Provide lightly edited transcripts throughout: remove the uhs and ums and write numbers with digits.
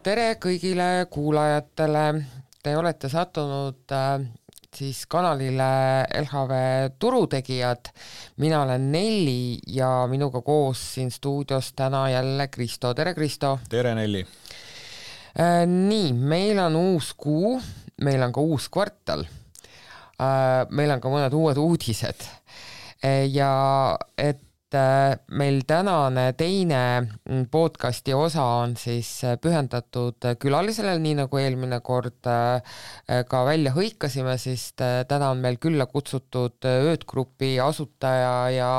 tere kõigile kuulajatele. Te olete sattunud siis kanalile LHV turutegijad. Mina olen Nelli ja minuga koos siin stuudios täna jälle Kristo. Tere Kristo. Tere Nelli. Nii, meil on uus kuu, meil on ka uus kvartal. Meil on ka mõned uued uudised. Ja et meil tänane teine podcasti osa on siis pühendatud külalisele, nii nagu eelmine kord ka välja hõikasime, siis täna on meil külla kutsutud Öötgrupi asutaja ja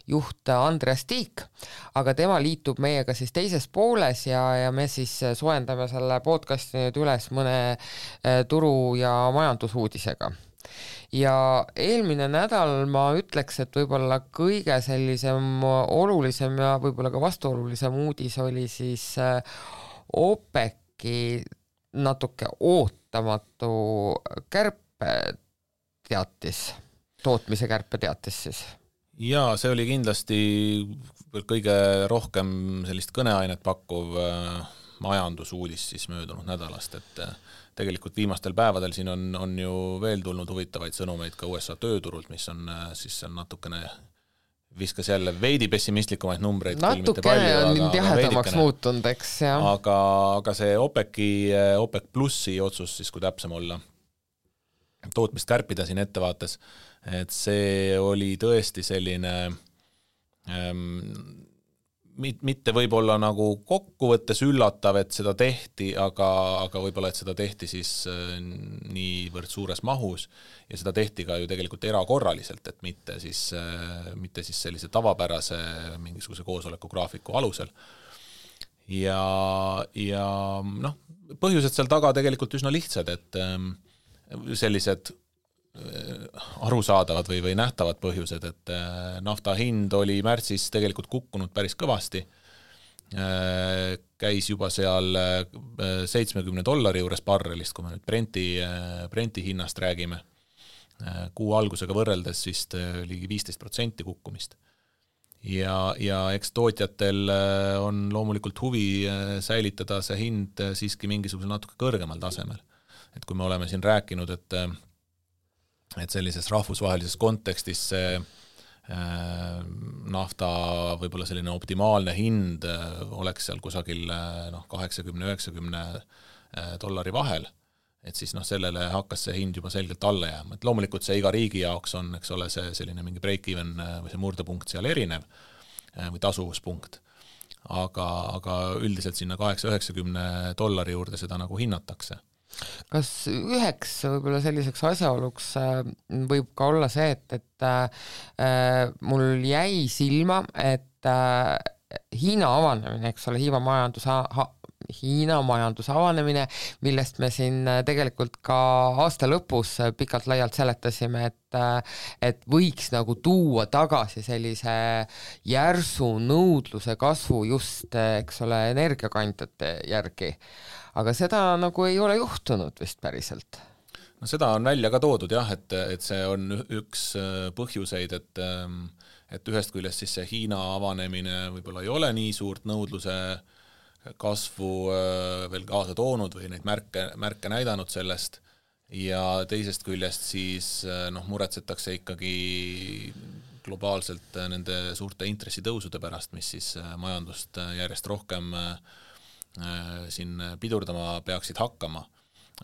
juht Andreas Tiik, aga tema liitub meiega siis teises pooles ja me siis soendame selle podcasti nüüd üles mõne turu- ja majandusuudisega. Ja eelmine nädal ma ütleks, et võib-olla kõige sellisem olulisem ja võib-olla ka vastuolulisem uudis oli siis OPEC-i natuke ootamatu kärpeteatis, tootmise kärpeteatis siis. Ja see oli kindlasti kõige rohkem sellist kõneainet pakkuv majandusuudis siis möödunud nädalast, et tegelikult viimastel päevadel siin on ju veel tulnud huvitavaid sõnumeid ka USA tööturult, mis on siis natukene viskas jälle veidi pessimistlikumaid numbreid. Natukene on jahedamaks muutunud, eks. Aga see OPEC plussi otsus, siis kui täpsem olla, tootmist kärpida siin ettevaates, et see oli tõesti selline mitte võib-olla nagu kokkuvõttes üllatav, et seda tehti, aga võib-olla, et seda tehti siis niivõrd suures mahus ja seda tehti ka ju tegelikult erakorraliselt, et mitte siis sellise tavapärase mingisuguse koosoleku graafiku alusel. Ja noh, põhjused seal taga tegelikult üsna lihtsad, et sellised arusaadavad või nähtavad põhjused, et nafta hind oli märtsis tegelikult kukkunud päris kõvasti. Käis juba seal $70 juures barrelist, kui me nüüd Brenti hinnast räägime. Kuu algusega võrreldes vist ligi 15% kukkumist. Ja eks tootjatel on loomulikult huvi säilitada see hind siiski mingisuguse natuke kõrgemal tasemel. Et kui me oleme siin rääkinud, et sellises rahvusvahelises kontekstis see nafta võib-olla selline optimaalne hind oleks seal kusagil $80–90 vahel, et siis sellele hakkas see hind juba selgelt alla jääma. Et loomulikult see iga riigi jaoks on, eks ole, see selline mingi break-even või see murdepunkt seal erinev või tasuvuspunkt, aga üldiselt sinna $80–90 juurde seda nagu hinnatakse. Kas üheks võib-olla selliseks asjaoluks võib ka olla see, et mul jäi silma, et Hiina avanemine, eks ole, Hiina majanduse avanemine, millest me siin tegelikult ka aasta lõpus pikalt laialt seletasime, et võiks nagu tuua tagasi sellise järsu nõudluse kasvu just, eks ole, energiakandjate järgi. Aga seda nagu ei ole juhtunud vist päriselt. No seda on välja ka toodud jah, et see on üks põhjuseid, et ühest küljest siis see Hiina avanemine võib-olla ei ole nii suurt nõudluse kasvu veel kaasa toonud või neid märke näidanud sellest ja teisest küljest siis muretsetakse ikkagi globaalselt nende suurte intressitõusude pärast, mis siis majandust järjest rohkem siin pidurdama peaksid hakkama.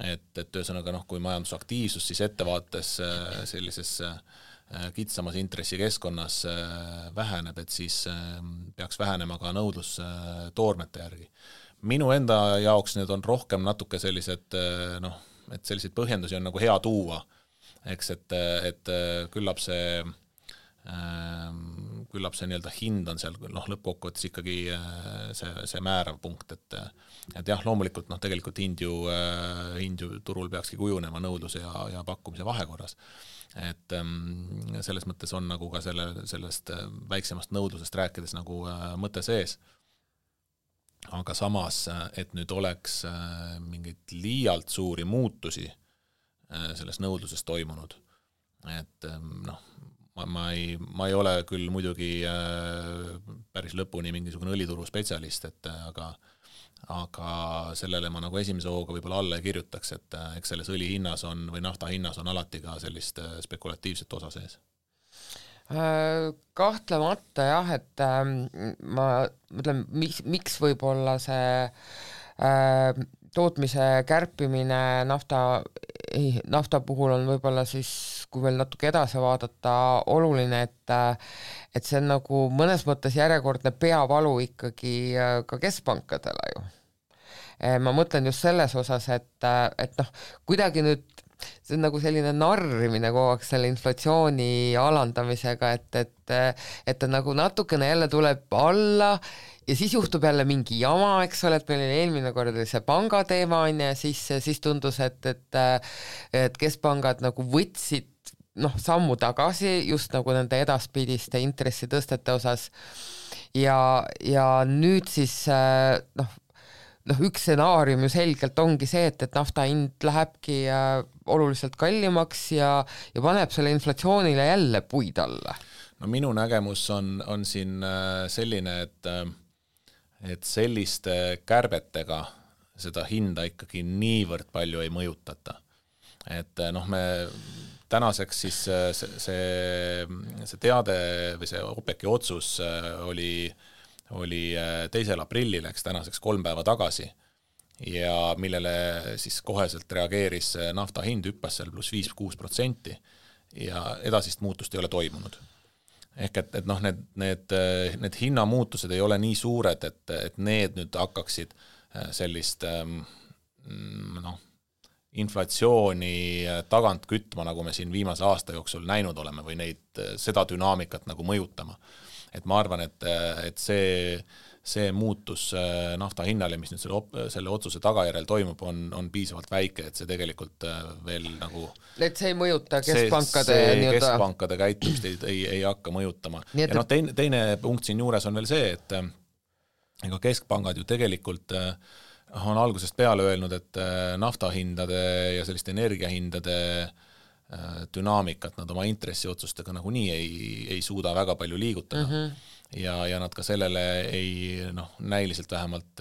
Et ühesõnaga kui majandusaktiivsus siis ettevaates sellises kitsamas intressikeskkonnas väheneb, et siis peaks vähenema ka nõudlus toormete järgi. Minu enda jaoks need on rohkem natuke sellised, et selliseid põhjendusi on nagu hea tuua, eks, et küllap see nii-öelda hind on seal lõppkokkuvõttes ikkagi see määrav punkt, et jah, loomulikult tegelikult hind ju turul peakski kujunema nõudluse ja pakkumise vahekorras. Et selles mõttes on nagu ka sellest väiksemast nõudlusest rääkides nagu mõte sees. Aga samas, et nüüd oleks mingit liialt suuri muutusi selles nõudluses toimunud, et ma ei ole küll muidugi päris lõpuni mingisugune õlituru spetsialist, et aga sellele ma nagu esimese hooga võib-olla alla ei kirjutaks, et eks selles õli hinnas on või nafta hinnas on alati ka sellist spekulatiivset osa sees. Kahtlemata jah, et ma mõtlen, miks võib-olla see tootmise kärpimine nafta puhul on võib-olla siis, kui veel natuke edasi vaadata, oluline, et see on nagu mõnes mõttes järjekordne peavalu ikkagi ka keskpankadele ju. Ma mõtlen just selles osas, et noh, kuidagi nüüd see on nagu selline narrimine kogu aeg selle inflatsiooni alandamisega, et nagu natukene jälle tuleb alla ja siis juhtub jälle mingi jama, eks ole, et meil oli eelmine kord see pangateema on ja siis tundus, et keskpangad nagu võtsid sammu tagasi just nagu nende edaspidiste intressitõstete osas ja nüüd siis üks stsenaarium ju selgelt ongi see, et nafta hind lähebki oluliselt kallimaks ja paneb selle inflatsioonile jälle puid alla. No minu nägemus on siin selline, et selliste kärbetega seda hinda ikkagi niivõrd palju ei mõjutata. Et me tänaseks siis see teade või see OPEC-i otsus oli 2. aprillil, eks tänaseks 3 päeva tagasi ja millele siis koheselt reageeris nafta hind hüppas seal pluss 5-6% ja edasist muutust ei ole toimunud. Ehk et need hinnamuutused ei ole nii suured, et need nüüd hakkaksid sellist inflatsiooni tagant kütma, nagu me siin viimase aasta jooksul näinud oleme või seda dünaamikat nagu mõjutama. Et ma arvan, et see muutus nafta hinnale, mis nüüd selle otsuse tagajärjel toimub, on piisavalt väike, et see tegelikult veel nagu et see ei mõjuta keskpankade keskpankade käitumist ei hakka mõjutama. Ja teine punkt siin juures on veel see, et ega keskpangad ju tegelikult on algusest peale öelnud, et naftahindade ja selliste energiahindade dünaamikat nad oma intressiotsustega nagunii ei suuda väga palju liigutada. Ja nad ka sellele näiliselt vähemalt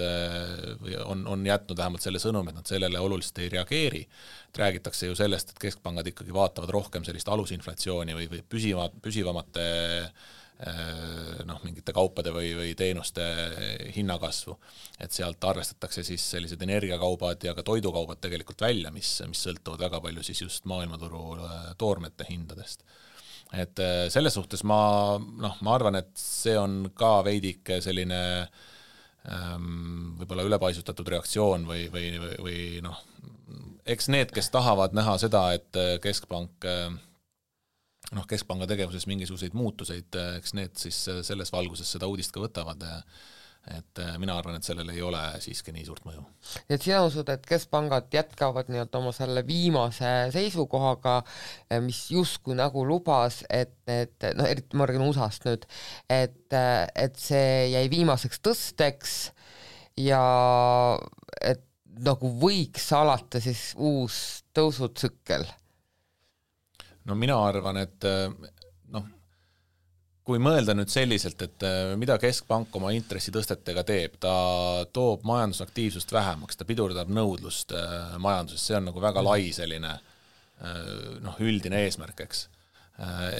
on jätnud vähemalt selle sõnum, et nad sellele oluliselt ei reageeri. Räägitakse ju sellest, et keskpangad ikkagi vaatavad rohkem sellist alusinflatsiooni või püsivamate mingite kaupade või teenuste hinnakasvu, et sealt arvestatakse siis sellised energiakaubad ja ka toidukaubad tegelikult välja, mis sõltuvad väga palju siis just maailmaturu toormete hindadest. Et selles suhtes ma arvan, et see on ka veidike selline võib-olla ülepaisutatud reaktsioon või eks need, kes tahavad näha seda, et keskpanga tegevuses mingisuguseid muutuseid, eks need siis selles valguses seda uudist ka võtavad, et mina arvan, et sellel ei ole siiski nii suurt mõju. Et sina usud, et keskpangad jätkavad oma selle viimase seisukohaga, mis justkui nagu lubas, et eriti ma räägin USA-st nüüd, et see jäi viimaseks tõsteks ja et nagu võiks alata siis uus tõusutsükkel? No mina arvan, et kui mõelda nüüd selliselt, et mida keskpank oma intressitõstetega teeb, ta toob majandusaktiivsust vähemaks, ta pidurdab nõudlust majanduses, see on nagu väga lai selline üldine eesmärk, eks.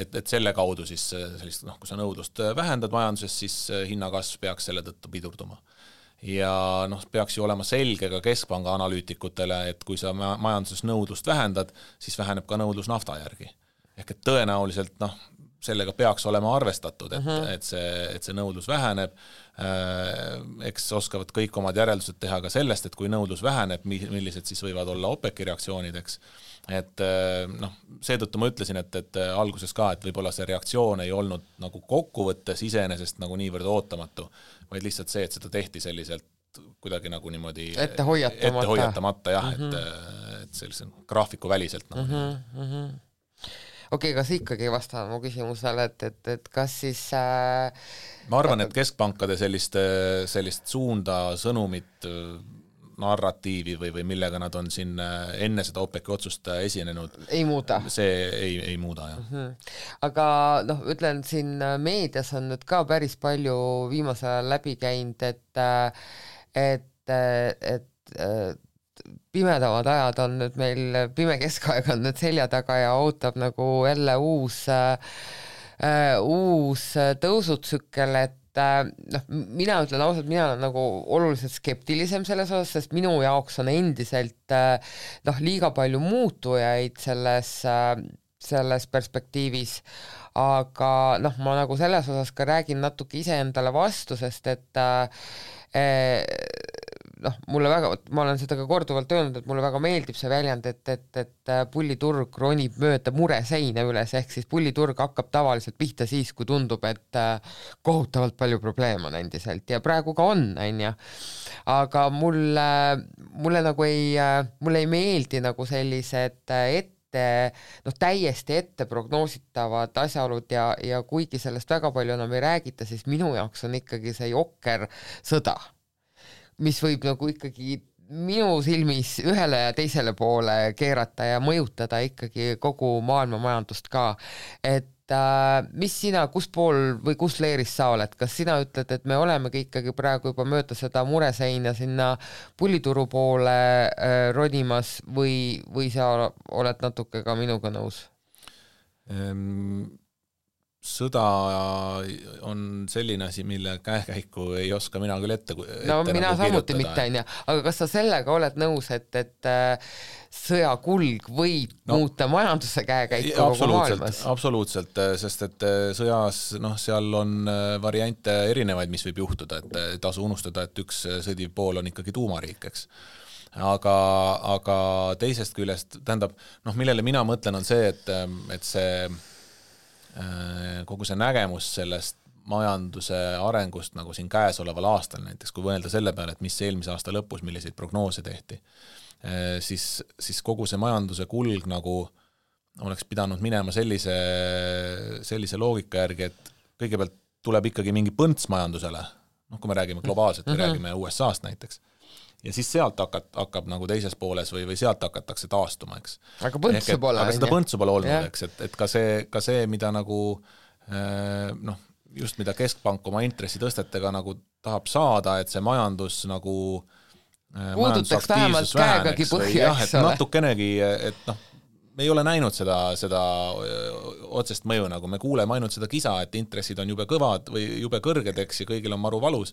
Et selle kaudu siis sellist, kui sa nõudlust vähendad majanduses, siis hinnakasv peaks selle tõttu pidurduma. Ja peaks ju olema selge ka keskpanga analüütikutele, et kui sa majanduses nõudlust vähendad, siis väheneb ka nõudlus nafta järgi. Ehk et tõenäoliselt sellega peaks olema arvestatud, et see nõudlus väheneb. Eks oskavad kõik omad järeldused teha ka sellest, et kui nõudlus väheneb, millised siis võivad olla OPEC-i reaktsioonideks. Et seetõttu ma ütlesin, et alguses ka, et võib-olla see reaktsioon ei olnud nagu kokkuvõttes iseenesest nagu niivõrd ootamatu, vaid lihtsalt see, et seda tehti selliselt kuidagi nagu niimoodi ette hoiatamata jah, et sellise graafiku väliselt nagu Okei, kas ikkagi ei vasta mu küsimusele, et kas siis ma arvan, et keskpankade sellist suunda, sõnumit narratiivi või millega nad on siin enne seda OPEC-i otsust esinenud, ei muuda. See ei muuda, jah. Aga ütlen, siin meedias on nüüd ka päris palju viimasel ajal läbi käinud, et pimedamad ajad on nüüd meil, pime keskaeg on nüüd selja taga ja ootab nagu jälle uus tõusutsükkel, et mina ütlen ausalt, mina olen nagu oluliselt skeptilisem selles osas, sest minu jaoks on endiselt liiga palju muutujaid selles perspektiivis, aga ma nagu selles osas ka räägin natuke iseendale vastu, sest et mulle väga, ma olen seda ka korduvalt öelnud, et mulle väga meeldib see väljend, et pulliturg ronib mööda mureseina üles, ehk siis pulliturg hakkab tavaliselt pihta siis, kui tundub, et kohutavalt palju probleeme on endiselt ja praegu ka on, aga mulle nagu mulle ei meeldi nagu sellised täiesti ette prognoositavad asjaolud ja kuigi sellest väga palju enam ei räägita, siis minu jaoks on ikkagi see jokker sõda, mis võib nagu ikkagi minu silmis ühele ja teisele poole keerata ja mõjutada ikkagi kogu maailma majandust ka. Et mis sina, kus pool või kus leeris sa oled? Kas sina ütled, et me olemegi ikkagi praegu juba mööda seda mureseina sinna pullituru poole ronimas või sa oled natuke ka minuga nõus? Sõda on selline asi, mille käekäiku ei oska mina küll ette mina nagu samuti mitte, aga kas sa sellega oled nõus, et sõja kulg võib muuta majanduse käekäiku kogu maailmas? Absoluutselt, sest et sõjas seal on variante erinevaid, mis võib juhtuda, et tasu unustada, et üks sõdiv pool on ikkagi tuumariik, eks. Aga teisest küljest, tähendab, millele mina mõtlen on see, et see kogu see nägemus sellest majanduse arengust nagu siin käesoleval aastal, näiteks kui võelda selle peale, et mis eelmise aasta lõpus, milliseid prognoose tehti, siis kogu see majanduse kulg nagu oleks pidanud minema sellise loogika järgi, et kõigepealt tuleb ikkagi mingi põnts majandusele, kui me räägime globaalselt, me räägime USA-st näiteks, ja siis sealt hakkab nagu teises pooles või sealt hakatakse taastuma, eks. Aga põntsu pole. Aga seda põntsu pole olnud, eks, et ka see, mida nagu just mida keskpank oma intressitõstetega nagu tahab saada, et see majandus nagu puudutaks vähemalt käegagi põhja, eks ole. Natukenegi, et me ei ole näinud seda otsest mõju, nagu me kuuleme ainult seda kisa, et intressid on jube kõvad või jube kõrged, eks, ja kõigil on maru valus,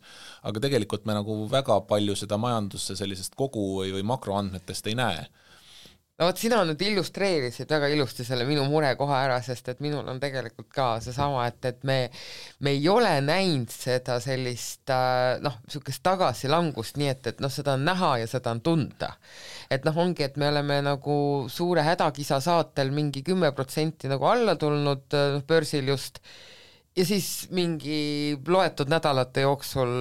aga tegelikult me nagu väga palju seda majandusse sellisest kogu või makroandmetest ei näe. Sina nüüd illustreerisid väga ilusti selle minu murekoha ära, sest et minul on tegelikult ka seesama, et me ei ole näinud seda sellist sukest tagasilangust, nii et seda on näha ja seda on tunda. Et ongi, et me oleme nagu suure hädakisa saatel mingi 10% nagu alla tulnud börsil just ja siis mingi loetud nädalate jooksul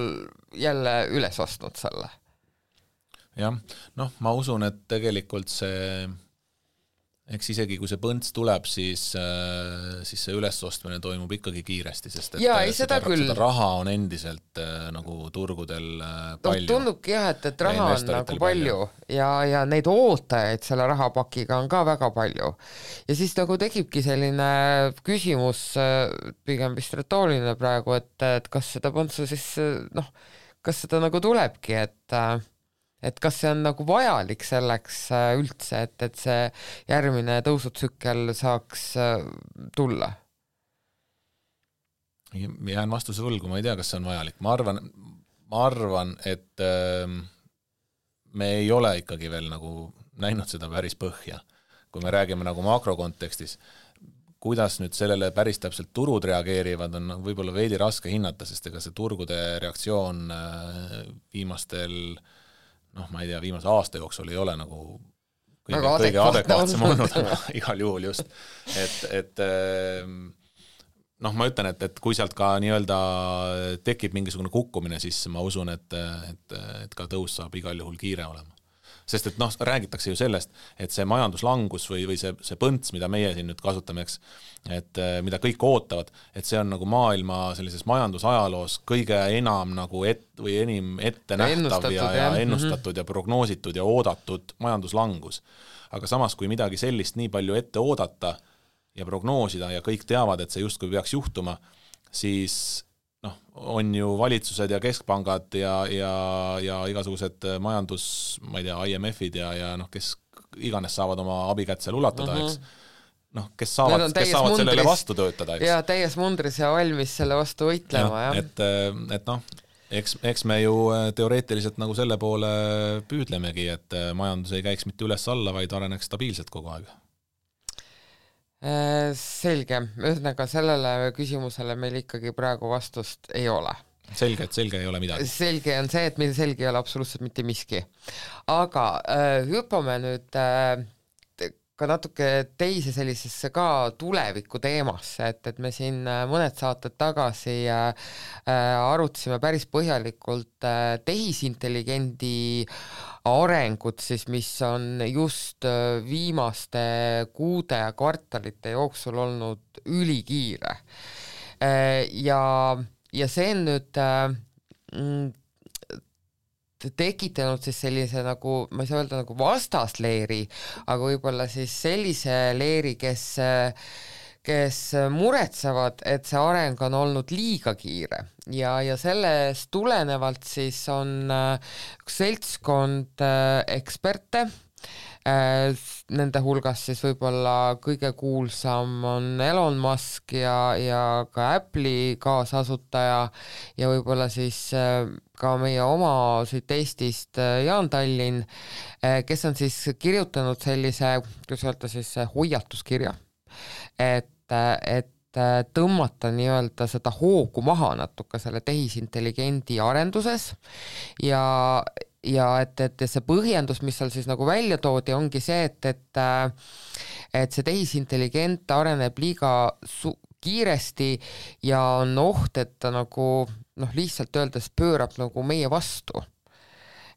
jälle üles ostnud selle. Jah, ma usun, et tegelikult see, eks isegi kui see põnts tuleb, siis see ülesostmine toimub ikkagi kiiresti, sest et seda raha on endiselt nagu turgudel palju. Tundubki jah, et raha on nagu palju ja neid ootajaid selle rahapakiga on ka väga palju. Ja siis nagu tekibki selline küsimus, pigem vist retooriline praegu, et kas seda põntsu siis, kas seda nagu tulebki, et kas see on nagu vajalik selleks üldse, et see järgmine tõusutsükkel saaks tulla? Jään vastuse võlgu, ma ei tea, kas see on vajalik. Ma arvan, et me ei ole ikkagi veel nagu näinud seda päris põhja. Kui me räägime nagu makrokontekstis, kuidas nüüd sellele päris täpselt turud reageerivad, on võib-olla veidi raske hinnata, sest ega see turgude reaktsioon ma ei tea, viimase aasta jooksul ei ole nagu kõige adekvaatsem olnud, igal juhul just. Et ma ütlen, et kui sealt ka nii-öelda tekib mingisugune kukkumine, siis ma usun, et ka tõus saab igal juhul kiire olema. sest et räägitakse ju sellest, et see majanduslangus või see põnts, mida meie siin nüüd kasutame, eks, et mida kõik ootavad, et see on nagu maailma sellises majandusajaloos kõige enam nagu enim ette nähtav ja ennustatud ja prognoositud ja oodatud majanduslangus. Aga samas, kui midagi sellist nii palju ette oodata ja prognoosida ja kõik teavad, et see justkui peaks juhtuma, siis on ju valitsused ja keskpangad ja igasugused majandus, ma ei tea, IMF-id ja kes iganes saavad oma abikätt seal ulatada, eks. Kes saavad sellele vastu töötada, eks. Ja täies mundris ja valmis selle vastu võitlema, jah. Eks me ju teoreetiliselt nagu selle poole püüdlemegi, et majandus ei käiks mitte üles-alla, vaid areneks stabiilselt kogu aeg. Selge, ühesõnaga sellele küsimusele meil ikkagi praegu vastust ei ole. Selge, et selge ei ole midagi. Selge on see, et meil selge ei ole absoluutselt mitte miski. Aga hüppame nüüd ka natuke teise sellisesse ka tuleviku teemasse, et me siin mõned saated tagasi arutasime päris põhjalikult tehisintelligendi arengut, siis mis on just viimaste kuude ja kvartalite jooksul olnud ülikiire. Ja see on nüüd tekitanud siis sellise nagu, ma ei saa öelda nagu vastasleeri, aga võib-olla siis sellise leeri, kes muretsevad, et see areng on olnud liiga kiire ja sellest tulenevalt siis on üks seltskond eksperte, nende hulgas siis võib-olla kõige kuulsam on Elon Musk ja ka Apple'i kaasasutaja ja võib-olla siis ka meie oma siit Eestist Jaan Tallinn, kes on siis kirjutanud sellise, kuidas öelda siis hoiatuskirja, et tõmmata nii-öelda seda hoogu maha natuke selle tehisintelligendi arenduses ja et see põhjendus, mis seal siis nagu välja toodi, ongi see, et see tehisintelligent areneb liiga kiiresti ja on oht, et ta nagu lihtsalt öeldes pöörab nagu meie vastu.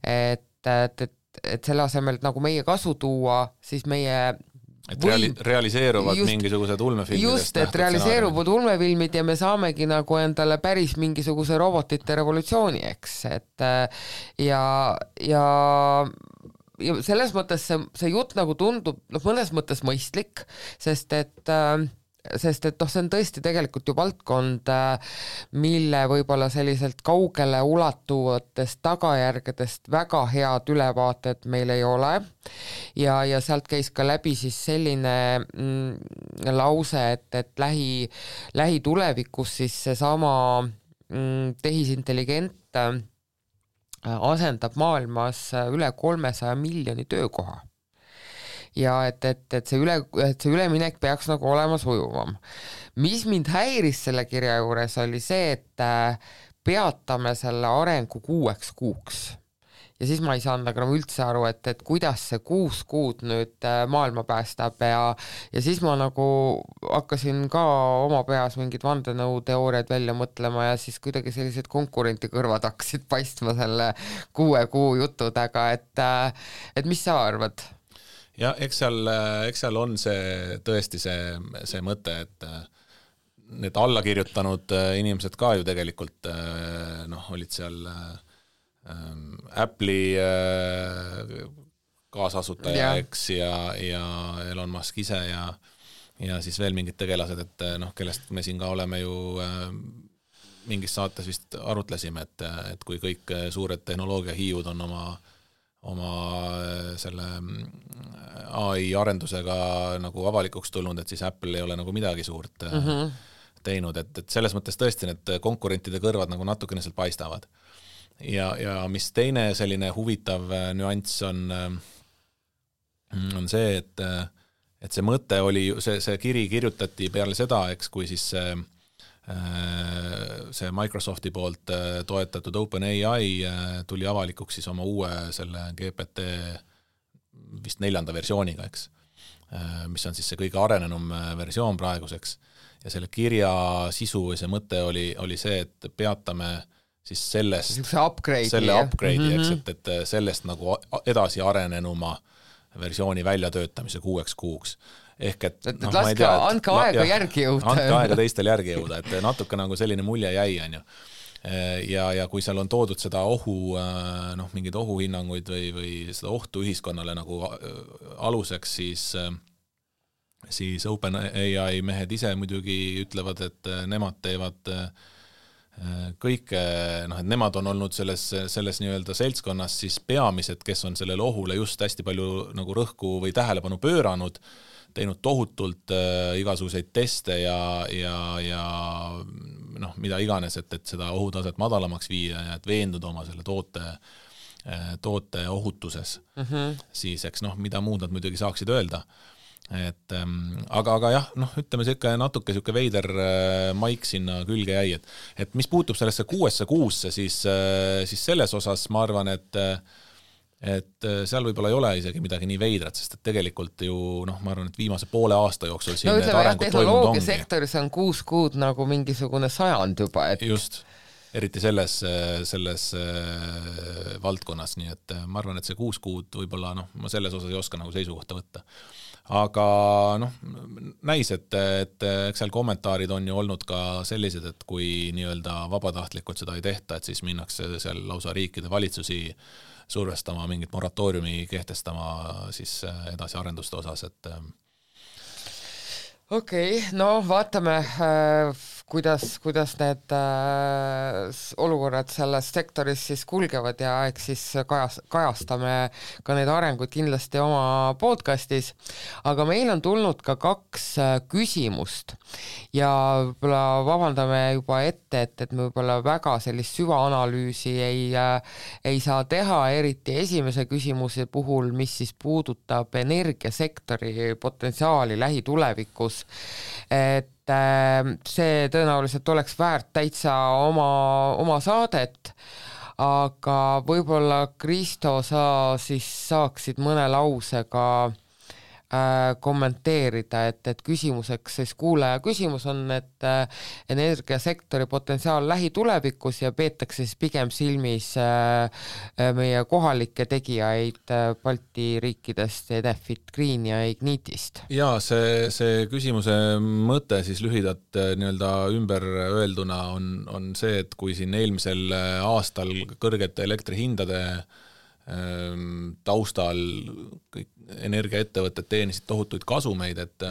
Et selle asemel nagu meie kasu tuua, siis meie realiseeruvad mingisugused ulmefilmidest. Just, et realiseeruvad ulmefilmid ja me saamegi nagu endale päris mingisuguse robotite revolutsiooni, eks. Ja selles mõttes see jutt nagu tundub mõnes mõttes mõistlik, sest et see on tõesti tegelikult ju valdkond, mille võib-olla selliselt kaugele ulatuvatest tagajärgedest väga head ülevaated meil ei ole ja sealt käis ka läbi siis selline lause, et lähitulevikus siis seesama tehisintelligent asendab maailmas üle 300 miljoni töökoha. Ja et see üleminek peaks nagu olema sujuvam. Mis mind häiris selle kirja juures oli see, et peatame selle arengu 6 kuuks. Ja siis ma ei saanud nagu üldse aru, et kuidas see 6 kuud nüüd maailma päästab ja siis ma nagu hakkasin ka oma peas mingid vandenõuteooriad välja mõtlema ja siis kuidagi sellised konkurenti kõrvad hakkasid paistma selle 6 kuu jutudega, et mis sa arvad? Ja eks seal on see tõesti see mõte, et need allakirjutanud inimesed ka ju tegelikult olid seal Apple'i kaasasutaja, eks, ja Elon Musk ise ja siis veel mingid tegelased, et kellest me siin ka oleme ju mingis saates vist arutlesime, et kui kõik suured tehnoloogiahiiud on oma selle AI arendusega nagu avalikuks tulnud, et siis Apple ei ole nagu midagi suurt teinud, et selles mõttes tõesti need konkurentide kõrvad nagu natukene seal paistavad. Ja mis teine selline huvitav nüanss on see, et see mõte oli, see kiri kirjutati peale seda, eks, kui siis see Microsofti poolt toetatud OpenAI tuli avalikuks siis oma uue selle GPT vist 4. versiooniga, eks, mis on siis see kõige arenenum versioon praeguseks ja selle kirja sisu või see mõte oli see, et peatame siis sellest, selle upgrade'i, eks, et sellest nagu edasi arenenuma versiooni väljatöötamise 6 kuuks. Ehk et no, ma ei tea, andke aega järgi jõuda. Andke aega teistel järgi jõuda, et natuke nagu selline mulje jäi, on ju. Ja kui seal on toodud seda mingeid ohuhinnanguid või seda ohtu ühiskonnale nagu aluseks, siis OpenAI mehed ise muidugi ütlevad, et nemad teevad kõike, et nemad on olnud selles nii-öelda seltskonnas siis peamised, kes on sellele ohule just hästi palju nagu rõhku või tähelepanu pööranud, teinud tohutult igasuguseid teste ja mida iganes, et seda ohutaset madalamaks viia ja et veenduda oma selle toote ohutuses. Siis, eks mida muud nad muidugi saaksid öelda. Et, aga jah, ütleme natuke veider maik sinna külge jäi, et mis puutub sellesse 6 kuusse, siis selles osas ma arvan, et seal võib-olla ei ole isegi midagi nii veidrat, sest et tegelikult ju, ma arvan, et viimase poole aasta jooksul siin need arengud toimunud ongi. Sektoris on 6 kuud nagu mingisugune sajand juba. Et... Just, eriti selles valdkonnas, nii et ma arvan, et see 6 kuud võib-olla, ma selles osas ei oska nagu seisukohta võtta. Aga näis, et eks seal kommentaarid on ju olnud ka sellised, et kui nii-öelda vabatahtlikult seda ei tehta, et siis minnakse seal lausa riikide valitsusi survestama, mingit moratooriumi kehtestama siis edasi arenduste osas, et Okei, vaatame, kuidas need olukorrad selles sektoris siis kulgevad ja eks siis kajastame ka need arengud kindlasti oma podcastis, aga meil on tulnud ka 2 küsimust ja võib-olla vabandame juba ette, et me võib-olla väga sellist süvaanalüüsi ei saa teha, eriti esimese küsimuse puhul, mis siis puudutab energiasektori potentsiaali lähitulevikus. Et see tõenäoliselt oleks väärt täitsa oma saadet, aga võib-olla Kristo, sa siis saaksid mõne lausega kommenteerida, et küsimuseks siis kuulaja küsimus on, et energiasektori potentsiaal lähitulevikus ja peetakse siis pigem silmis meie kohalikke tegijaid Balti riikidest, Enefit Green ja Ignitist. Ja see küsimuse mõte siis lühidalt nii-öelda ümber öelduna on see, et kui siin eelmisel aastal kõrgete elektrihindade taustal kõik energiaettevõtted teenisid tohutuid kasumeid, et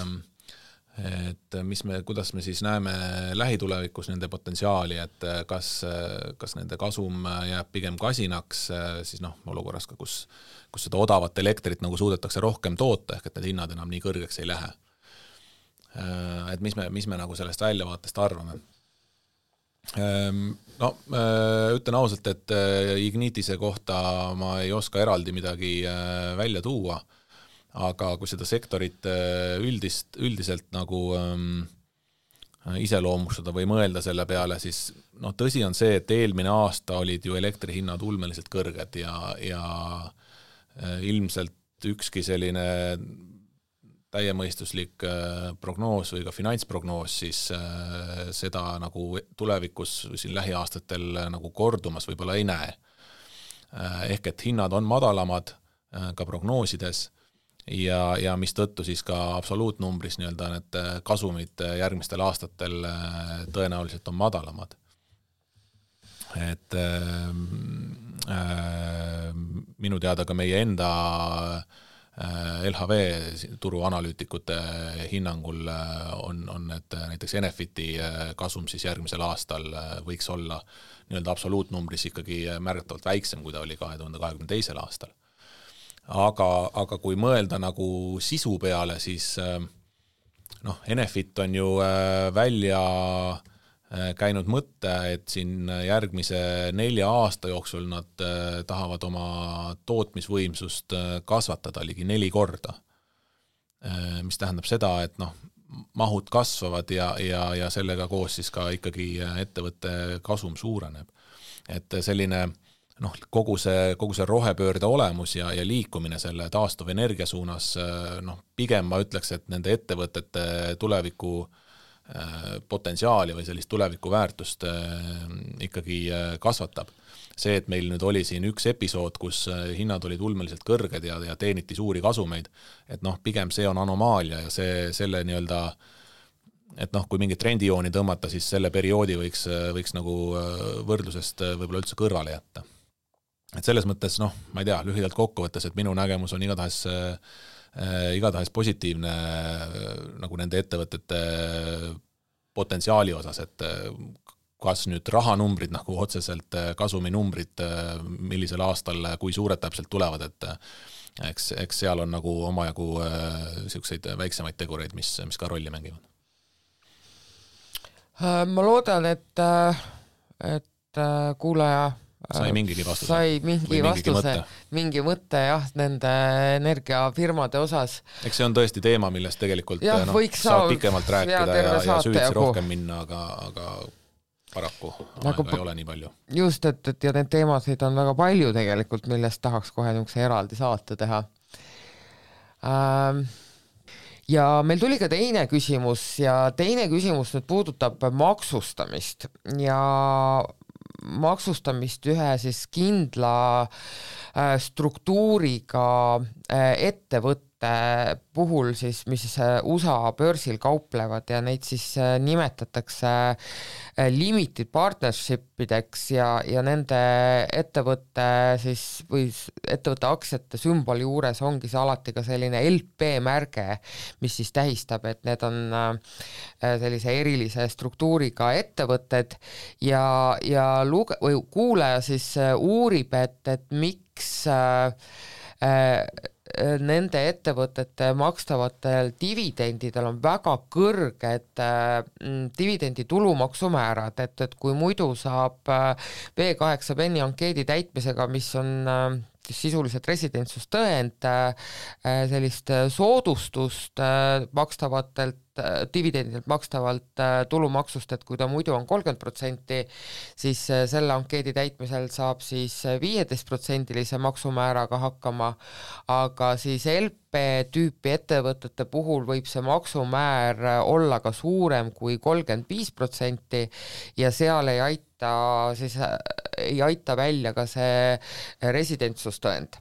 kuidas me siis näeme lähitulevikus nende potentsiaali, et kas nende kasum jääb pigem kasinaks, siis olukorras ka, kus seda odavat elektrit nagu suudetakse rohkem toota, ehk et need hinnad enam nii kõrgeks ei lähe. Et mis me nagu sellest väljavaatest arvame? Ütlen ausalt, et Ignitise kohta ma ei oska eraldi midagi välja tuua, aga kui seda sektorit üldiselt nagu iseloomustada või mõelda selle peale, siis tõsi on see, et eelmine aasta olid ju elektrihinnad ulmeliselt kõrged ja ilmselt ükski selline täiemõistuslik prognoos või ka finantsprognoos siis seda nagu tulevikus siin lähiaastatel nagu kordumas võib-olla ei näe. Ehk et hinnad on madalamad ka prognoosides ja mis tõttu siis ka absoluutnumbris nii-öelda need kasumid järgmistel aastatel tõenäoliselt on madalamad. Et minu teada ka meie enda LHV turuanalüütikute hinnangul on need näiteks Enefiti kasum siis järgmisel aastal võiks olla nii-öelda absoluutnumbris ikkagi märgatavalt väiksem, kui ta oli 2022. aastal. Aga kui mõelda nagu sisu peale, siis Enefit on ju välja käinud mõtte, et siin järgmise 4 aasta jooksul nad tahavad oma tootmisvõimsust kasvatada ligi 4 korda. Mis tähendab seda, et mahud kasvavad ja sellega koos siis ka ikkagi ettevõtte kasum suureneb. Et selline kogu see rohepöörde olemus ja liikumine selle taastuvenergia suunas, pigem ma ütleks, et nende ettevõtete tuleviku potentsiaali või sellist tulevikuväärtust ikkagi kasvatab. See, et meil nüüd oli siin üks episood, kus hinnad olid ulmeliselt kõrged ja teeniti suuri kasumeid, et pigem see on anomaalia ja selle nii-öelda, et kui mingi trendijooni tõmmata, siis selle perioodi võiks nagu võrdlusest võib-olla üldse kõrvale jätta. Et selles mõttes, ma ei tea, lühidalt kokkuvõttes, et minu nägemus on igatahes positiivne nagu nende ettevõtete potentsiaali osas, et kas nüüd rahanumbrid nagu otseselt kasuminumbrid, millisel aastal, kui suured täpselt tulevad, et eks seal on nagu omajagu selliseid väiksemaid tegureid, mis ka rolli mängivad. Ma loodan, et kuulaja sai mingigi vastuse. Sai mingi mõtte jah, nende energiafirmade osas. Eks see on tõesti teema, millest tegelikult saab pikemalt rääkida ja süüdsi rohkem minna, aga paraku aega ei ole nii palju. Just, et ja need teemasid on väga palju tegelikult, millest tahaks kohe niisuguse eraldi saate teha. Ja meil tuli ka teine küsimus ja teine küsimus nüüd puudutab maksustamist ja maksustamist ühe siis kindla struktuuriga ettevõtte puhul siis, mis USA börsil kauplevad ja neid siis nimetatakse limited partnershipideks ja nende ettevõtte siis või ettevõtte aktsiate sümboli juures ongi see alati ka selline LP märge, mis siis tähistab, et need on sellise erilise struktuuriga ettevõtted ja kuulaja siis uurib, et miks nende ettevõtete makstavatel dividendidel on väga kõrged dividendi tulumaksumäärad, et kui muidu saab B8 penni ankeedi täitmisega, mis on sisuliselt residentsustõend, sellist soodustust makstavatelt dividendidelt makstavalt tulumaksust, et kui ta muidu on 30%, siis selle ankeedi täitmisel saab siis 15% maksumääraga hakkama, aga siis LP-tüüpi ettevõtete puhul võib see maksumäär olla ka suurem kui 35% ja seal ei aita välja ka see residentsustõend.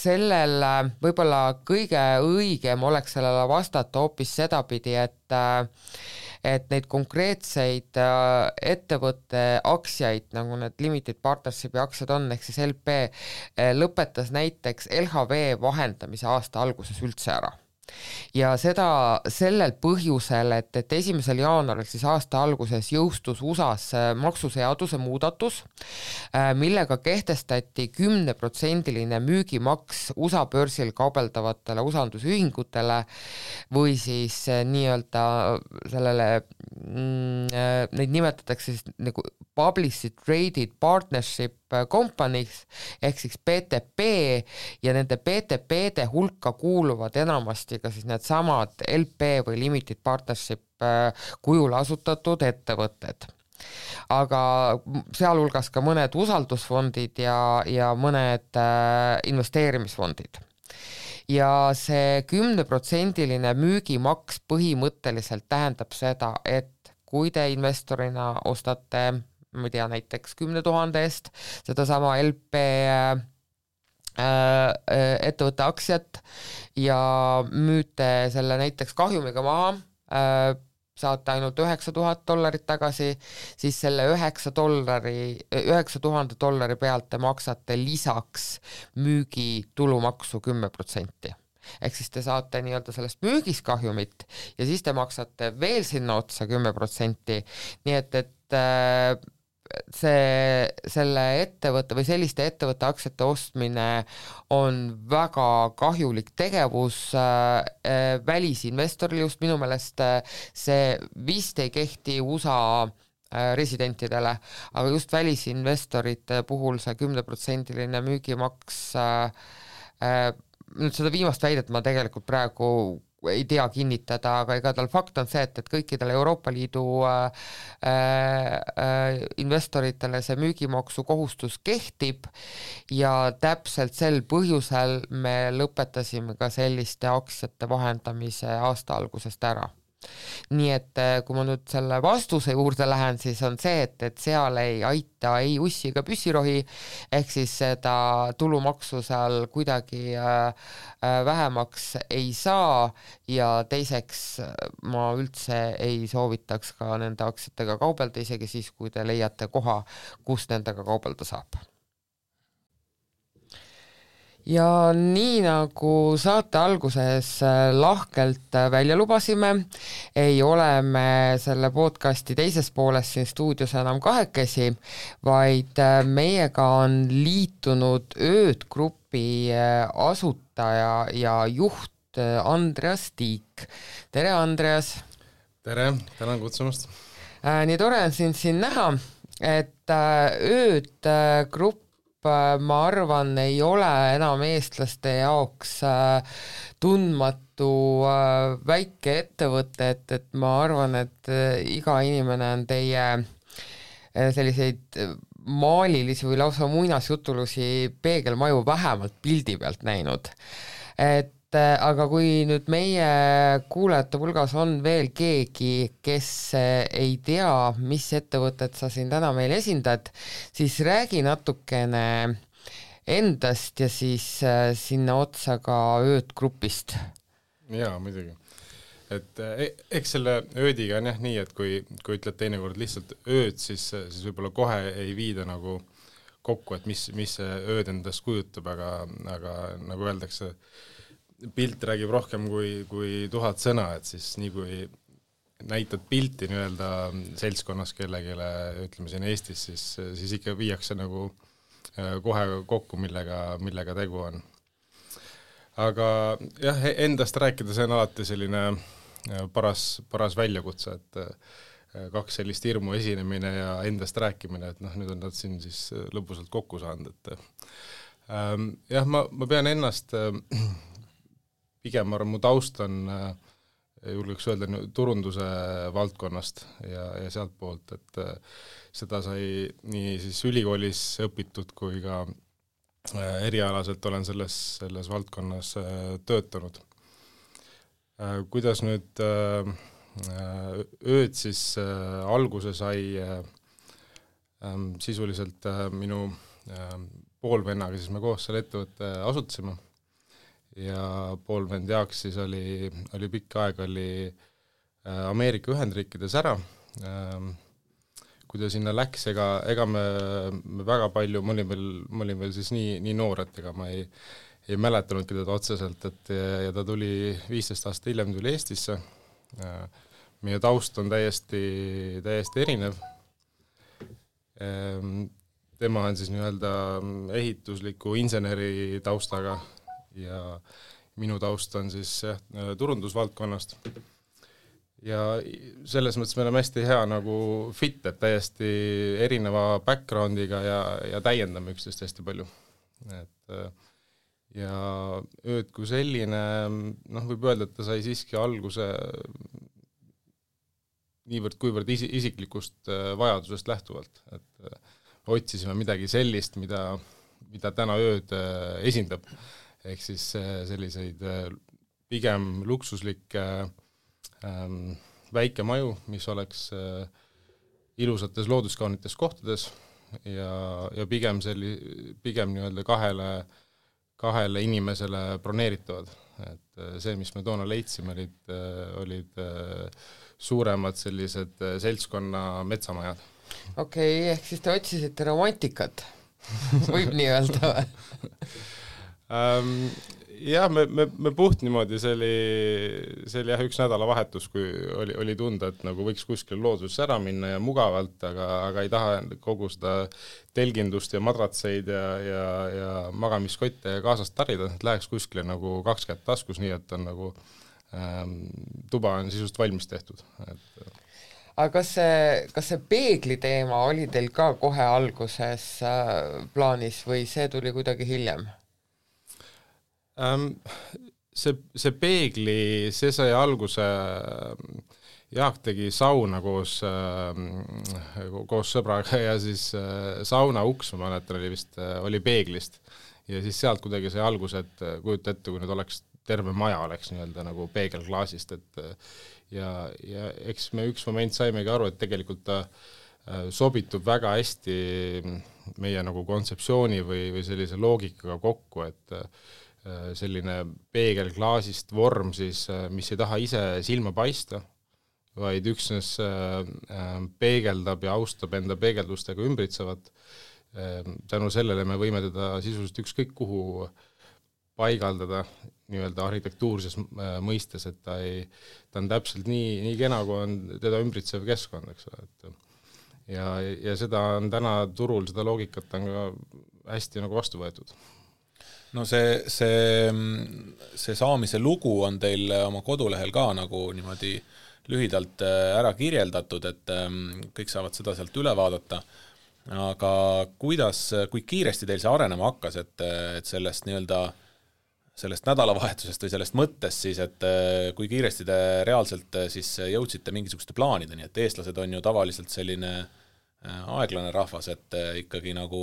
Sellel võib-olla kõige õigem oleks sellele vastata hoopis sedapidi, et neid konkreetseid ettevõtte aktsiaid, nagu need limited partnershipi aktsiad on, ehk siis LP, lõpetas näiteks LHV vahendamise aasta alguses üldse ära. Ja seda sellel põhjusel, et 1. jaanuaril siis aasta alguses jõustus USAs maksuseaduse muudatus, millega kehtestati 10% müügimaks USA börsil kaubeldavatele usaldusühingutele või siis nii-öelda sellele, neid nimetatakse siis nagu Publicly Traded Partnership Companies ehk siis PTP ja nende PTP-de hulka kuuluvad enamasti ka siis need samad LP või Limited Partnership kujul asutatud ettevõtted. Aga sealhulgas ka mõned usaldusfondid ja mõned investeerimisfondid. Ja see 10% müügimaks põhimõtteliselt tähendab seda, et kui te investorina ostate ma ei tea, näiteks 10 000 eest seda sama LP ettevõtte aktsiat ja müüte selle näiteks kahjumiga maha, saate ainult $9,000 tagasi, siis selle $9,000 pealt te maksate lisaks müügi tulumaksu 10%. Ehk siis te saate nii-öelda sellest müügist kahjumit ja siis te maksate veel sinna otsa 10%, nii et selle ettevõtte või selliste ettevõtte aktsiate ostmine on väga kahjulik tegevus välisinvestoril, just minu meelest see vist ei kehti USA residentidele, aga just välisinvestorite puhul see 10% müügimaks, nüüd seda viimast väidet ma tegelikult praegu ei tea kinnitada, aga igatahes fakt on see, et kõikidele Euroopa Liidu investoritele see müügimaksu kohustus kehtib ja täpselt sel põhjusel me lõpetasime ka selliste aktsiate vahendamise aasta algusest ära. nii et kui ma nüüd selle vastuse juurde lähen, siis on see, et seal ei aita ei ussi ega püssirohi, ehk siis seda tulumaksu seal kuidagi vähemaks ei saa ja teiseks ma üldse ei soovitaks ka nende aktsiatega kaubelda, isegi siis, kui te leiate koha, kus nendega kaubelda saab. Ja nii nagu saate alguses lahkelt välja lubasime, ei ole me selle podcasti teises pooles siin stuudios enam kahekesi, vaid meiega on liitunud Ööd Grupi asutaja ja juht Andreas Tiik. Tere, Andreas! Tere, tänan kutsumast! Nii tore on siin näha, et Ööd Grupp ma arvan, ei ole enam eestlaste jaoks tundmatu väike ettevõte, et ma arvan, et iga inimene on teie selliseid maalilisi või lausa muinasjutulusi peegelmaju vähemalt pildi pealt näinud. Aga kui nüüd meie kuulajate hulgas on veel keegi, kes ei tea, mis ettevõtet sa siin täna meil esindad, siis räägi natukene endast ja siis sinna otsa ka Ööd Grupist. Jaa, muidugi. Et eks selle öödiga on jah nii, et kui ütled teinekord lihtsalt ööd, siis võib-olla kohe ei viida nagu kokku, et mis see ööd endast kujutab, aga nagu öeldakse, pilt räägib rohkem kui 1000 sõna, et siis nii kui näitad pilti nii-öelda seltskonnas kellegile, ütleme siin Eestis, siis ikka viiakse nagu kohe kokku, millega tegu on. Aga jah, endast rääkida, see on alati selline paras väljakutse, et 2 sellist hirmu esinemine ja endast rääkimine, et nüüd on nad siin siis lõpusalt kokku saanud. Jah, ma pean ennast pigem mu taust on, julgeks öelda, turunduse valdkonnast ja sealt poolt, et seda sai nii siis ülikoolis õpitud kui ka erialaselt olen selles valdkonnas töötanud. Kuidas nüüd ööd siis alguse sai sisuliselt minu poolvennaga, siis me koos selle ettevõtte asutasime. Ja poolvend Jaaks siis oli pikk aeg Ameerika Ühendriikides ära. Kui ta sinna läks, ega me väga palju, ma olin veel siis nii noor, et ega ma ei mäletanudki teda otseselt, ja ta tuli 15 aastat hiljem tuli Eestisse. Meie taust on täiesti erinev. Tema on siis nii-öelda ehitusliku inseneri taustaga ja minu taust on siis turundusvaldkonnast. Ja selles mõttes me oleme hästi hea nagu fit, et täiesti erineva backgroundiga ja täiendame üksteist hästi palju. Ja ööd kui selline, võib öelda, et ta sai siiski alguse kuivõrd isiklikust vajadusest lähtuvalt, et otsisime midagi sellist, mida täna ööd esindab. Ehk siis selliseid pigem luksuslikke väikemaju, mis oleks ilusates looduskaunites kohtades ja pigem nii-öelda kahele inimesele broneeritavad. Et see, mis me toona leidsime, olid suuremad sellised seltskonna metsamajad. Okei, ehk siis te otsisite romantikat, võib nii öelda või? Jah, me puht niimoodi, see oli üks nädalavahetus, kui oli tunda, et nagu võiks kuskil looduses ära minna ja mugavalt, aga ei taha kogu seda telgindust ja madratseid ja magamiskotte kaasast tarida, et läheks kuskile nagu 2 kätt taskus, nii et on nagu tuba on sisust valmis tehtud. Aga kas see peegli teema oli teil ka kohe alguses plaanis või see tuli kuidagi hiljem? See peegli, see sai alguse, Jaak tegi sauna koos sõbraga ja siis sauna uks, ma mäletan, oli peeglist ja siis sealt kuidagi sai alguse, et kujuta ette, kui nüüd oleks terve maja oleks nii-öelda nagu peegelklaasist, et ja eks me üks moment saimegi aru, et tegelikult ta sobitub väga hästi meie nagu kontseptsiooni või sellise loogikaga kokku, et selline peegelklaasist vorm siis, mis ei taha ise silma paista, vaid üksnes peegeldab ja austab enda peegeldustega ümbritsevat. Tänu sellele me võime teda sisuliselt ükskõik kuhu paigaldada nii-öelda arhitektuurses mõistes, et ta on täpselt nii kena, kui on teda ümbritsev keskkond, eks ole, et ja seda on täna turul, seda loogikat on ka hästi nagu vastu võetud. No see saamise lugu on teil oma kodulehel ka nagu niimoodi lühidalt ära kirjeldatud, et kõik saavad seda sealt üle vaadata. Aga kui kiiresti teil see arenema hakkas, et sellest nii-öelda sellest nädalavahetusest või sellest mõttest siis, et kui kiiresti te reaalselt siis jõudsite mingisuguste plaanideni, et eestlased on ju tavaliselt selline aeglane rahvas, et ikkagi nagu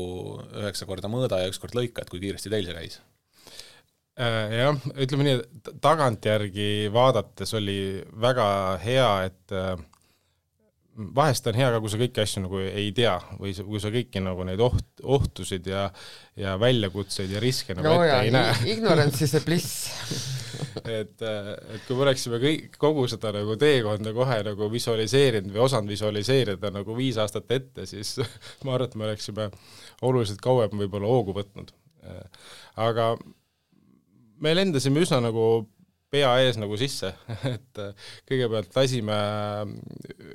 9 korda mõõda ja 1 kord lõika, et kui kiiresti teil see käis? Jah, ütleme nii, et tagantjärgi vaadates oli väga hea, et vahest on hea ka, kui sa kõiki asju nagu ei tea või kui sa kõiki nagu neid ohtusid ja väljakutseid ja riske nagu ette ei näe. Ignorance is a bliss. et kui me oleksime kogu seda nagu teekonda kohe nagu visualiseerinud või osanud visualiseerida nagu 5 aastat ette, siis ma arvan, et me oleksime oluliselt kauem võib-olla hoogu võtnud. Aga me lendasime üsna nagu pea ees nagu sisse, et kõigepealt lasime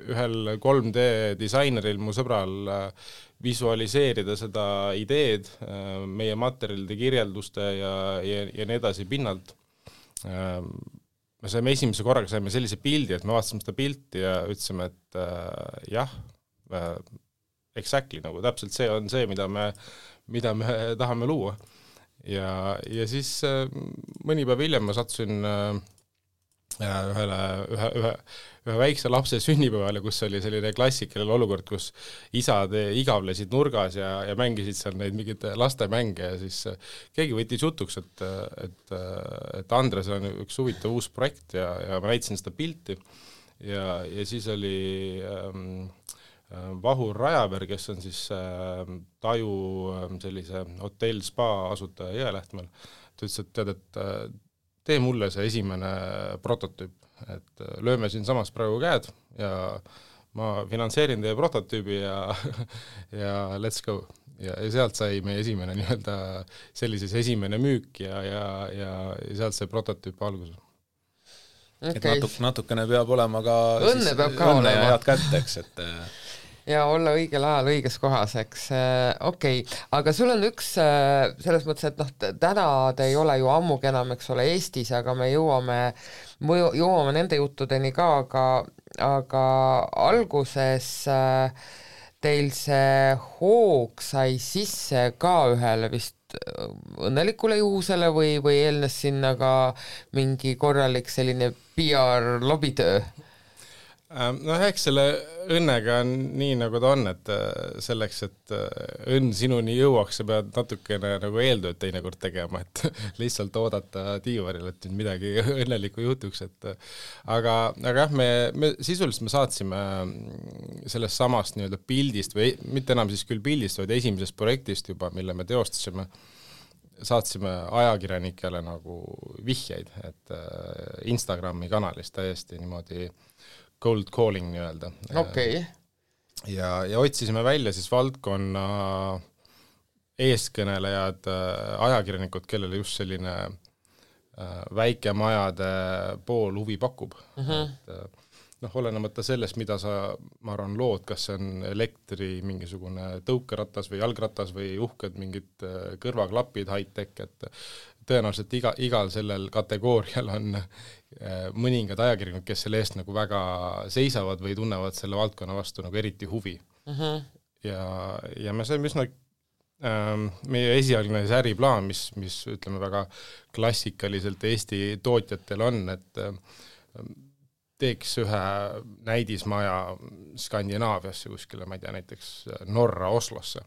ühel 3D disaineril, mu sõbral, visualiseerida seda ideed meie materjalide kirjelduste ja nii edasi pinnalt. Me saime esimese korraga sellise pildi, et me vaatasime seda pilti ja ütlesime, et jah, exactly, nagu täpselt see on see, mida me tahame luua. Ja siis mõni päev hiljem ma sattusin ühe väikse lapse sünnipäevale, kus oli selline klassikaline olukord, kus isad igavlesid nurgas ja mängisid seal neid mingid lastemänge ja siis keegi võttis jutuks, et Andres on üks huvitav uus projekt ja ma näitasin seda pilti ja siis oli Vahur Rajaberg, kes on siis Taju sellise hotell spa asutaja Jõelähtmel. Ta ütles, et tead, et tee mulle see esimene prototüüp, et lööme siin samas praegu käed ja ma finantseerin teie prototüübi ja let's go. Ja sealt sai meie esimene nii-öelda sellises esimene müük ja sealt sai prototüüp alguses. Okay. Et natukene peab olema ka õnne peab ka olema. Ja head kätteks, et ja olla õigel ajal õiges kohas, eks. Okei. Aga sul on üks selles mõttes, et täna te ei ole ju ammugi enam, eks ole, Eestis, aga me jõuame nende juttudeni ka, aga alguses teil see hoog sai sisse ka ühele vist õnnelikule juhusele või eelnes sinna ka mingi korralik selline PR lobitöö? Eks selle õnnega on nii, nagu ta on, et selleks, et õnn sinuni jõuaks, sa pead natukene nagu eeltööd teinekord tegema, et lihtsalt oodata diivaril, et midagi õnnelikku jutuks, aga jah, me sisuliselt me saatsime sellest samast nii-öelda pildist või mitte enam siis küll pildist, vaid esimesest projektist juba, mille me teostasime, saatsime ajakirjanikele nagu vihjeid, et Instagrami kanalis täiesti niimoodi cold calling nii-öelda. Okay. Ja otsisime välja siis valdkonna eeskõnelejad, ajakirjanikud, kellele just selline väikemajade pool huvi pakub. Olenemata sellest, mida ma arvan, lood, kas see on elektri mingisugune tõukeratas või jalgratas või uhked mingid kõrvaklapid high-tech, et tõenäoliselt igal sellel kategoorial on mõningad ajakirjanikud, kes selle eest nagu väga seisavad või tunnevad selle valdkonna vastu nagu eriti huvi. Ja me saime üsna meie esialgne äriplaan, mis ütleme väga klassikaliselt Eesti tootjatel on, et teeks ühe näidismaja Skandinaaviasse kuskile, ma ei tea, näiteks Norra Oslosse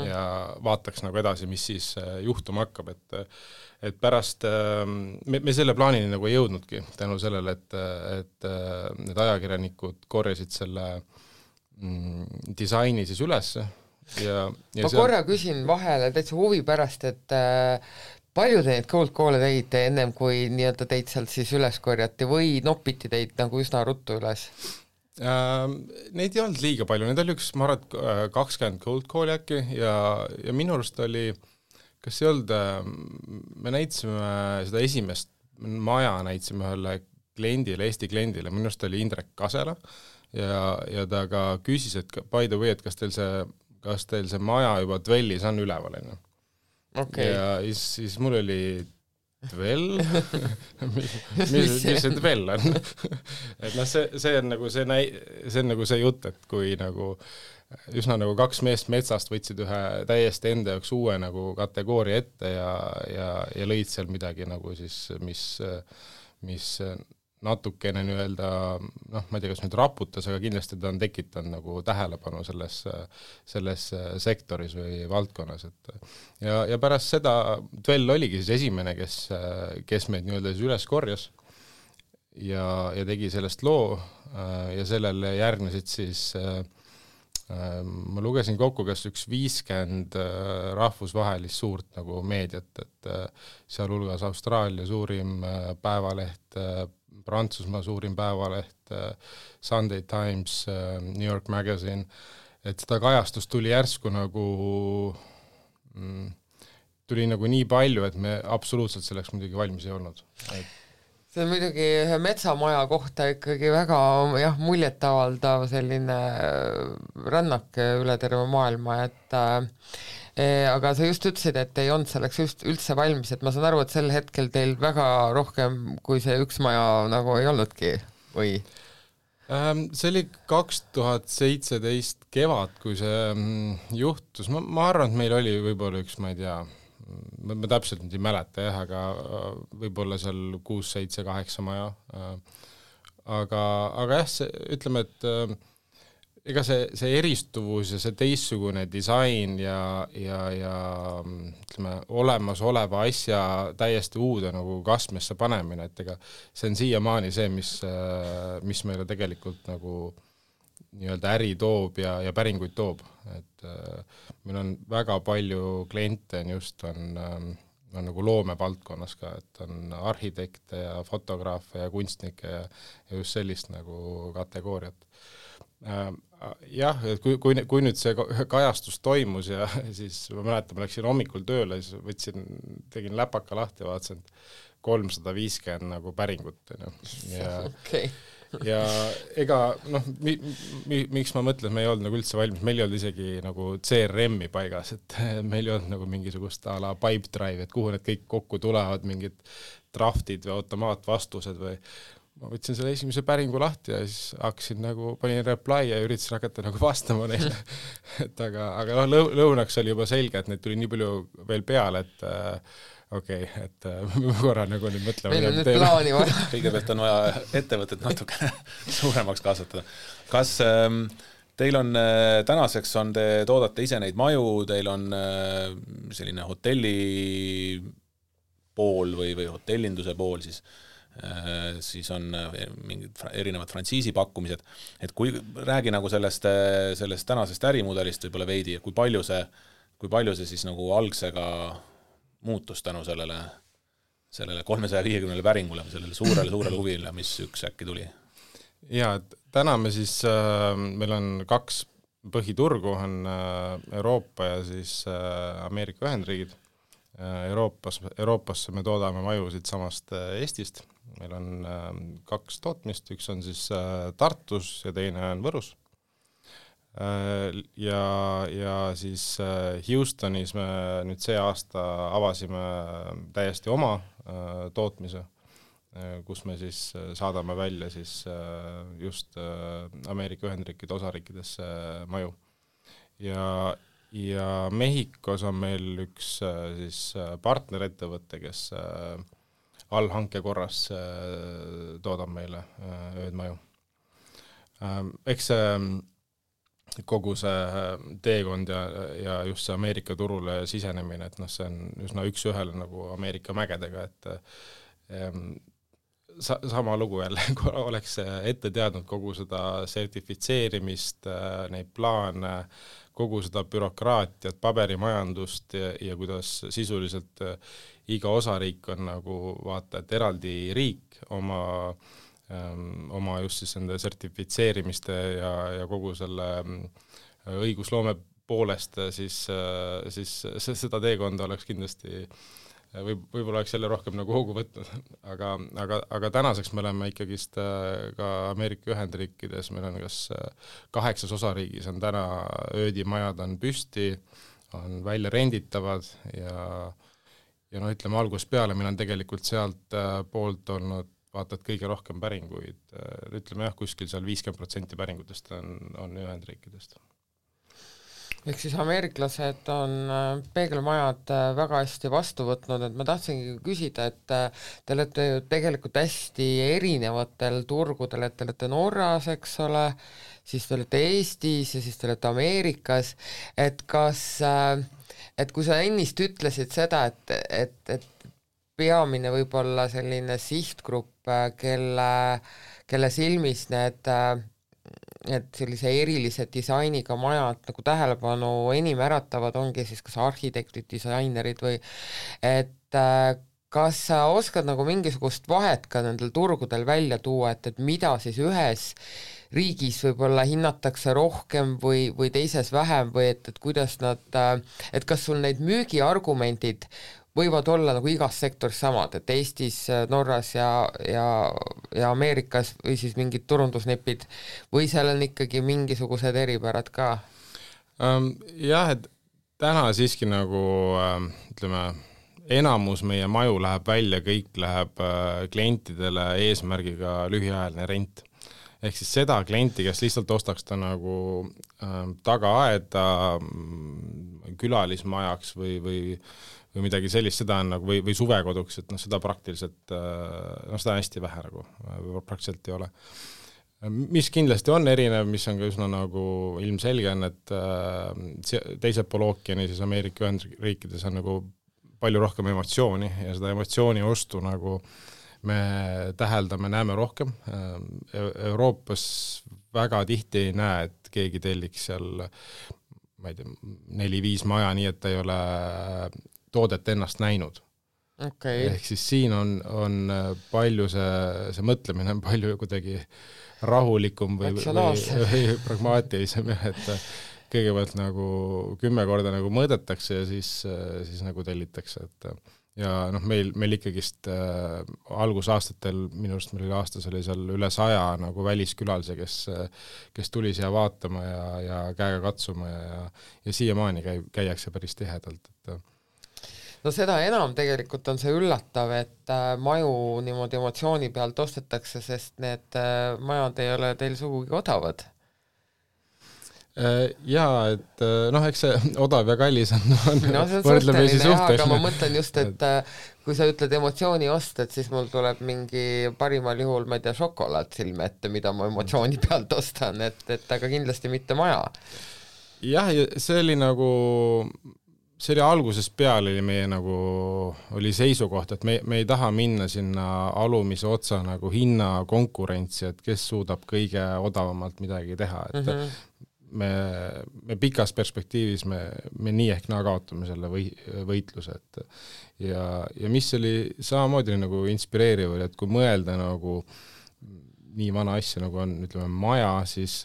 ja vaataks nagu edasi, mis siis juhtuma hakkab, et pärast me selle plaanini nagu ei jõudnudki tänu sellele, et need ajakirjanikud korjasid selle disaini siis üles ja ma korra küsin vahele täitsa huvi pärast, et palju te neid cold call'e tegite ennem, kui nii-öelda teid sealt siis üles korjati või noppiti teid nagu üsna ruttu üles? Neid ei olnud liiga palju, neid oli ma arvan, 20 cold call'i äkki ja minu arust oli, kas ei olnud, me näitasime seda esimest maja, näitasime ühele kliendile, Eesti kliendile, minu arust oli Indrek Kasela ja ta ka küsis, et by the way, et kas teil see maja juba Dwellis on üleval, enne. Okay. Ja siis mul oli Dwell, mis see Dwell on? Et see on nagu see jutt, et kui nagu üsna nagu kaks meest metsast võtsid ühe täiesti enda jaoks uue nagu kategooria ette ja lõid seal midagi nagu siis, mis natukene nii-öelda, ma ei tea, kas nüüd raputas, aga kindlasti ta on tekitanud nagu tähelepanu selles sektoris või valdkonnas. Ja pärast seda Dwell oligi siis esimene, kes meid nii-öelda üles korjas ja tegi sellest loo ja sellele järgnesid siis ma lugesin kokku, kas üks 50 rahvusvahelist suurt nagu meediat, et seal hulgas Austraalia suurim päevaleht, Prantsusmaa suurim päevaleht, Sunday Times, New York Magazine, et seda kajastust tuli järsku tuli nagu nii palju, et me absoluutselt selleks muidugi valmis ei olnud. See on muidugi ühe metsamaja kohta ikkagi väga muljetavaldav selline rännak üle terve maailma, et aga sa just ütlesid, et ei olnud selleks just üldse valmis, et ma saan aru, et sel hetkel teil väga rohkem kui see üks maja nagu ei olnudki, või? See oli 2017 kevad, kui see juhtus. Ma arvan, et meil oli võib-olla üks, ma ei tea, ma täpselt nüüd ei mäleta, aga võib-olla seal 6, 7, 8 maja. Aga ütleme, et ega see eristuvus ja see teissugune disain ja ütleme, olemasoleva asja täiesti uude nagu kastmesse panemine, et ega see on siiamaani see, mis meile tegelikult nagu nii-öelda äri toob ja päringuid toob, et meil on väga palju kliente on nagu loomevaldkonnas ka, et on arhitekte ja fotograafe ja kunstnikke ja just sellist nagu kategooriat. Jah, et kui nüüd see kajastus toimus ja siis ma mäletan, ma läksin hommikul tööle, siis tegin läpaka lahti ja vaatasin 350 nagu päringut. Ja ega miks ma mõtlen, et me ei olnud nagu üldse valmis, meil ei olnud isegi nagu CRM-i paigas, et meil ei olnud nagu mingisugust a la pipe drive, et kuhu need kõik kokku tulevad, mingid draftid või automaatvastused või ma võtsin selle esimese päringu lahti ja siis hakkasin nagu, panin reply ja üritasin hakata nagu vastama neile. Et aga lõunaks oli juba selge, et neid tuli nii palju veel peale, et okei, et korra nagu nüüd mõtlema. Meil on nüüd plaani vaja. Kõigepealt on vaja ettevõtet natuke suuremaks kasvatada. Kas teil on tänaseks te toodate ise neid maju, teil on selline hotelli pool või hotellinduse pool siis on mingid erinevad frantsiisi pakkumised, et kui räägi nagu sellest tänasest ärimudelist võib-olla veidi, kui palju see siis nagu algsega muutus tänu sellele 350 päringule, sellele suurele huvile, mis üks äkki tuli? Ja, täna me siis, meil on 2 põhiturgu, on Euroopa ja siis Ameerika Ühendriigid. Euroopasse me toodame maju siit samast Eestist. Meil on 2 tootmist, üks on siis Tartus ja teine on Võrus. Ja siis Houstonis me nüüd see aasta avasime täiesti oma tootmise, kus me siis saadame välja siis just Ameerika Ühendriikide osariikidesse maju. Ja Mehhikos on meil üks siis partnerettevõte, kes allhanke korras toodab meile öödmaju. Eks kogu see teekond ja just see Ameerika turule sisenemine, et see on üsna üks-ühele nagu Ameerika mägedega, et sama lugu jälle, kui oleks ette teadnud kogu seda sertifitseerimist, neid plaane, kogu seda bürokraatiat, paberimajandust ja kuidas sisuliselt iga osariik on nagu vaata, et eraldi riik oma just siis nende sertifitseerimiste ja kogu selle õigusloome poolest, siis seda teekonda oleks kindlasti võib-olla oleks jälle rohkem nagu hoogu võtnud, aga tänaseks me oleme ikkagist ka Ameerika Ühendriikides, meil on kas 8 osariigis on täna öödimajad on püsti, on välja renditavad ja ütleme algusest peale meil on tegelikult sealt poolt olnud vaata, et kõige rohkem päringuid, ütleme kuskil seal 50% päringutest on Ühendriikidest. Ehk siis ameeriklased on peegelmajad väga hästi vastu võtnud, et ma tahtsingi küsida, et te olete ju tegelikult hästi erinevatel turgudel, et te olete Norras, eks ole, siis te olete Eestis ja siis te olete Ameerikas, et kas, et kui sa ennist ütlesid seda, et peamine võib-olla selline sihtgrupp, kelle silmis need sellise erilise disainiga majad nagu tähelepanu enim äratavad, ongi siis kas arhitektid, disainerid või et kas sa oskad nagu mingisugust vahet ka nendel turgudel välja tuua, et mida siis ühes riigis võib-olla hinnatakse rohkem või teises vähem või et kuidas nad, et kas sul neid müügiargumendid võivad olla nagu igas sektoris samad, et Eestis, Norras ja Ameerikas või siis mingid turundusnipid või seal on ikkagi mingisugused eripärad ka? Jah, et täna siiski nagu ütleme, enamus meie maju läheb välja, kõik läheb klientidele eesmärgiga lühiajaline rent. Ehk siis seda klienti, kes lihtsalt ostaks ta nagu tagaaeda külalismajaks või midagi sellist, seda on nagu, või suvekoduks, et seda praktiliselt, seda on hästi vähe nagu, praktiliselt ei ole. Mis kindlasti on erinev, mis on ka üsna nagu ilmselge on, et teised pool ookeani, siis Ameerika Ühendriikides on nagu palju rohkem emotsiooni ja seda emotsiooni ostu nagu me täheldame, näeme rohkem. Euroopas väga tihti ei näe, et keegi telliks seal, ma ei tea, 4-5 maja, nii et ta ei ole toodet ennast näinud. Okay. Ehk siis siin on palju see mõtlemine on palju kuidagi rahulikum või pragmaatilisem, et kõigepealt nagu 10 korda nagu mõõdetakse ja siis nagu tellitakse, et ja meil ikkagist algusaastatel, minu arust meil aastas oli seal üle 100 nagu väliskülalise, kes tuli siia vaatama ja käega katsuma ja siiamaani käiakse päris tihedalt, et no seda enam tegelikult on see üllatav, et maju niimoodi emotsiooni pealt ostetakse, sest need majad ei ole teil sugugi odavad. Jaa, et eks see odav ja kallis on see on suhteline, aga ma mõtlen just, et kui sa ütled emotsiooni ost, et siis mul tuleb mingi parimal juhul, ma ei tea, šokolaad silme ette, mida ma emotsiooni pealt ostan, et aga kindlasti mitte maja. Jah, see oli nagu see oli algusest peale oli meie nagu oli seisukoht, et me ei taha minna sinna alumise otsa nagu hinna konkurentsi, et kes suudab kõige odavamalt midagi teha, et me pikas perspektiivis me nii ehk naa kaotame selle võitluse, et ja mis oli samamoodi nagu inspireeriv, et kui mõelda nagu nii vana asja nagu on, ütleme, maja, siis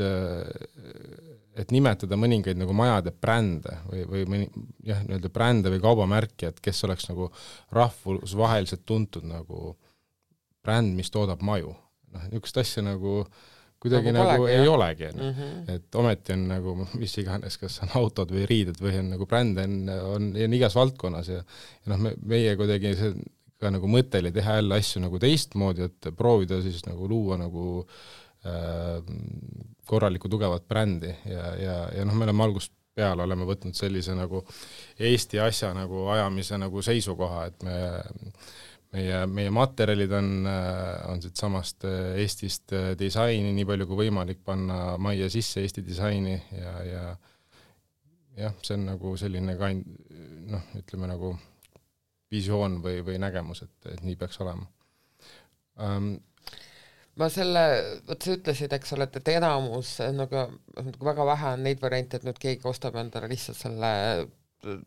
et nimetada mõningaid nagu majade brände või nii-öelda brände või kaubamärki, et kes oleks nagu rahvusvaheliselt tuntud nagu bränd, mis toodab maju. Niisugust asja nagu kuidagi nagu ei olegi. Et ometi on nagu mis iganes, kas on autod või riided või on nagu brände on igas valdkonnas ja meie kuidagi see ka nagu mõte oli teha jälle asju nagu teistmoodi, et proovida siis nagu luua nagu korralikku tugevat brändi ja me oleme algusest peale oleme võtnud sellise nagu Eesti asja nagu ajamise nagu seisukoha, et meie materjalid on siit samast Eestist disaini, nii palju kui võimalik panna majja sisse Eesti disaini ja jah, see on nagu selline ütleme nagu visioon või nägemus, et nii peaks olema. Ma vot sa ütlesid, eks ole, et enamus nagu väga vähe on neid variante, et nüüd keegi ostab endale lihtsalt selle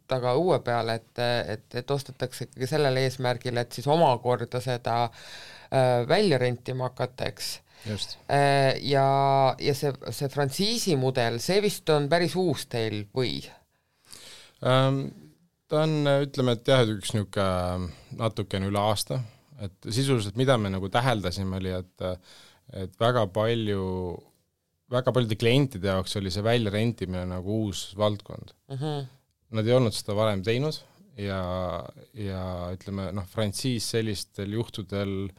taga õue peale, et ostetakse ikkagi sellele eesmärgile, et siis omakorda seda välja rentima hakata, eks. Just. Ja see frantsiisi mudel, see vist on päris uus teil või? Ta on, ütleme, et jah, üks niisugune natukene üle aasta, et sisuliselt mida me nagu täheldasime oli, et väga paljude klientide jaoks oli see välja rentimine nagu uus valdkond. Nad ei olnud seda varem teinud ja ütleme, frantsiis sellistel juhtudel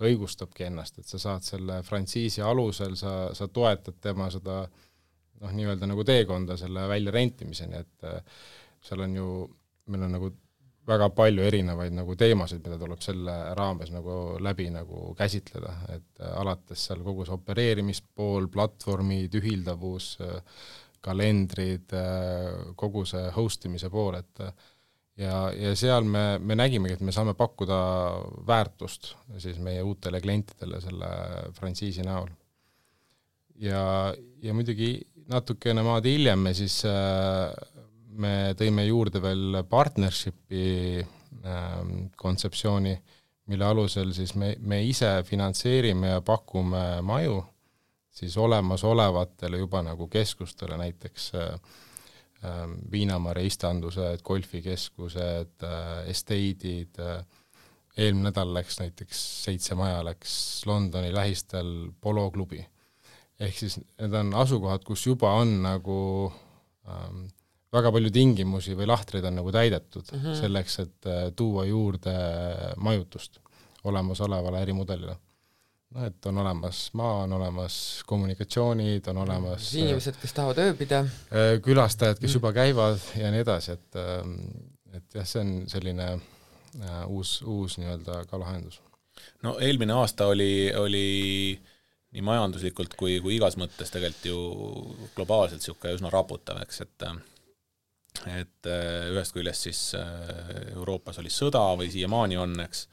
õigustabki ennast, et sa saad selle frantsiisi alusel, sa toetad tema seda nii-öelda nagu teekonda selle välja rentimiseni, et seal on meil on nagu väga palju erinevaid nagu teemasid, mida tuleb selle raames nagu läbi nagu käsitleda, et alates seal kogu see opereerimispool, platvormid, ühildavus, kalendrid, kogu see hostimise pool, et ja seal me nägimegi, et me saame pakkuda väärtust siis meie uutele klientidele selle frantsiisi näol. Ja muidugi natukene maad hiljem me tõime juurde veel partnershipi kontseptsiooni, mille alusel siis me ise finantseerime ja pakume maju siis olemasolevatele juba nagu keskustele, näiteks Viinamarja istandused, golfikeskused, estate'id, eelmine nädal läks näiteks 7 maja läks Londoni lähistel poloklubi. Ehk siis need on asukohad, kus juba on nagu väga palju tingimusi või lahtreid on nagu täidetud selleks, et tuua juurde majutust olemasolevale ärimudelile. Et on olemas maa, on olemas kommunikatsioonid, on olemas inimesed, kes tahavad ööbida, külastajad, kes juba käivad ja nii edasi, et jah, see on selline uus nii-öelda ka lahendus. No eelmine aasta oli nii majanduslikult kui igas mõttes tegelikult ju globaalselt siuke üsna raputav, eks, et ühest küljest siis Euroopas oli sõda või siiamaani on, eks,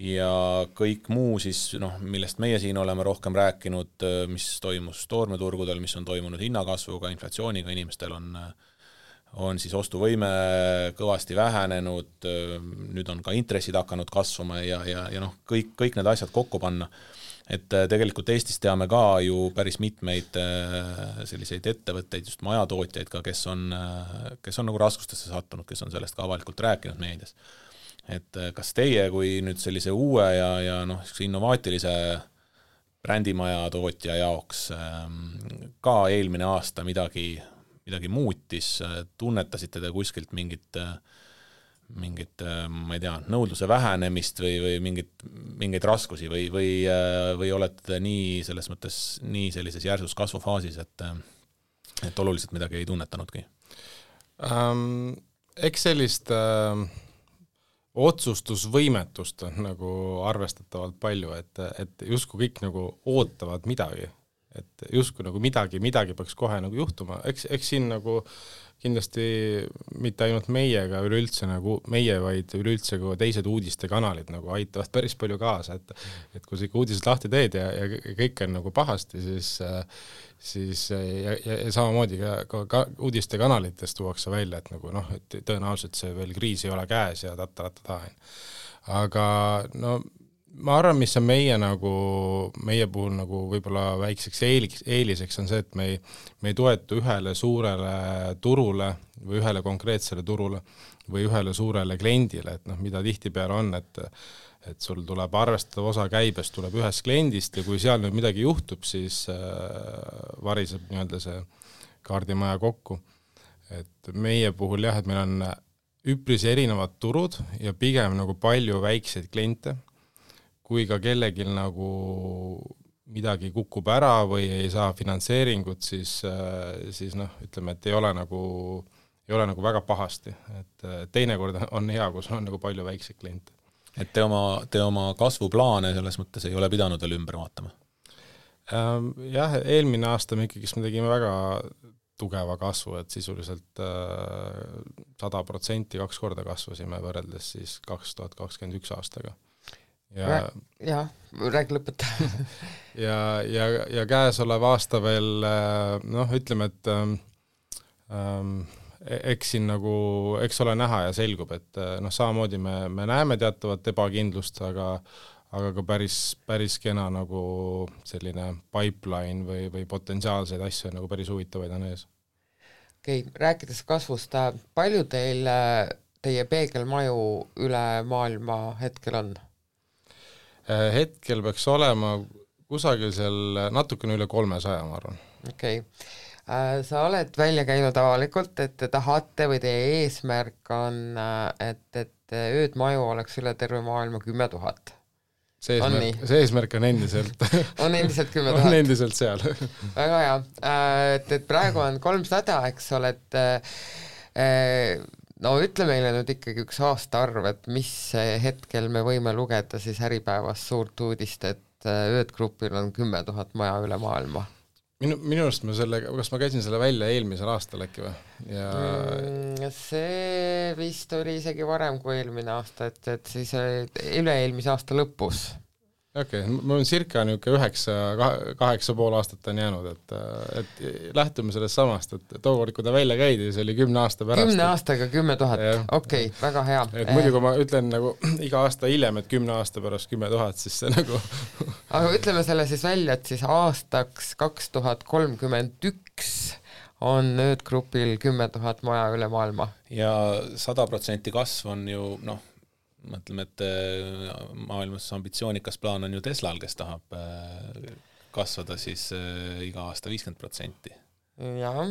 ja kõik muu siis, millest meie siin oleme rohkem rääkinud, mis toimus toormeturgudel, mis on toimunud hinnakasvuga, inflatsiooniga, inimestel on siis ostuvõime kõvasti vähenenud, nüüd on ka intressid hakanud kasvama ja kõik need asjad kokku panna. Et tegelikult Eestis teame ka ju päris mitmeid selliseid ettevõtteid, just majatootjaid ka, kes on nagu raskustesse sattunud, kes on sellest ka avalikult rääkinud meedias. Et kas teie kui nüüd sellise uue ja innovaatilise brändimaja tootja jaoks ka eelmine aasta midagi muutis, tunnetasite te kuskilt mingit, ma ei tea, nõudluse vähenemist või mingeid raskusi või olete nii selles mõttes nii sellises järsus kasvufaasis, et oluliselt midagi ei tunnetanudki? Eks sellist otsustusvõimetust on nagu arvestatavalt palju, et justkui kõik nagu ootavad midagi, et justkui nagu midagi peaks kohe nagu juhtuma, eks siin nagu kindlasti mitte ainult meiega üleüldse nagu meie, vaid üleüldse ka teised uudistekanalid nagu aitavad päris palju kaasa, et kui sa ikka uudised lahti teed ja kõik on nagu pahasti, siis ja samamoodi ka uudistekanalitest tuuakse välja, et nagu et tõenäoliselt see veel kriis ei ole käes ja aga ma arvan, mis on meie puhul nagu võib-olla väikseks eeliseks on see, et me ei toetu ühele suurele turule või ühele konkreetsele turule või ühele suurele kliendile, et mida tihtipeale on, et sul tuleb arvestatav osa käibest tuleb ühest kliendist ja kui seal nüüd midagi juhtub, siis variseb nii-öelda see kaardimaja kokku. Et meie puhul jah, et meil on üpris erinevad turud ja pigem nagu palju väikseid kliente, kui ka kellegil nagu midagi kukub ära või ei saa finantseeringut, siis ütleme, et ei ole nagu väga pahasti. Et teinekord on hea, kus on nagu palju väikseid kliente. et te oma kasvuplaane selles mõttes ei ole pidanud veel ümber vaatama? Jah, eelmine aasta me ikkagi tegime väga tugeva kasvu, et sisuliselt 100% 2 korda kasvasime võrreldes siis 2021 aastaga. Jah, räägi lõpeta. ja käesolev aasta veel, ütleme, et eks siin nagu, eks ole näha ja selgub, et samamoodi me näeme teatavat ebakindlust, aga ka päris kena nagu selline pipeline või potentsiaalseid asju nagu päris huvitavaid on ees. Okei, rääkides kasvust, palju teie peegelmaju üle maailma hetkel on? Hetkel peaks olema kusagil seal natukene üle 300, ma arvan. Okei. Sa oled välja käinud avalikult, et te tahate või teie eesmärk on, et öödmaju oleks üle terve maailma 10 000. See eesmärk on endiselt. On endiselt 10 000. On endiselt seal. Väga hea. Et praegu on 300, eks ole, et ütle meile nüüd ikkagi üks aastaarv, et mis hetkel me võime lugeda siis Äripäevas suurt uudist, et öödgrupil on 10 000 maja üle maailma. Minu arust kas ma käisin selle välja eelmisel aastal äkki või? See vist oli isegi varem kui eelmine aasta, et siis üle-eelmise aasta lõpus. Okei, mul on circa 8,5 aastat on jäänud, et lähtume sellest samast, et tookord, kui ta välja käidi, see oli 10 aasta pärast. 10 aastaga 10 000, okei, väga hea. Et muidu, kui ma ütlen nagu iga aasta hiljem, et 10 aasta pärast 10 000, siis see nagu... Aga ütleme selle siis välja, et siis aastaks 2031 on öödgrupil 10 000 maja üle maailma. Ja 100% kasv on ju, mõtleme, et maailmas ambitsioonikas plaan on ju Teslal, kes tahab kasvada siis iga aasta 50%. Jaa.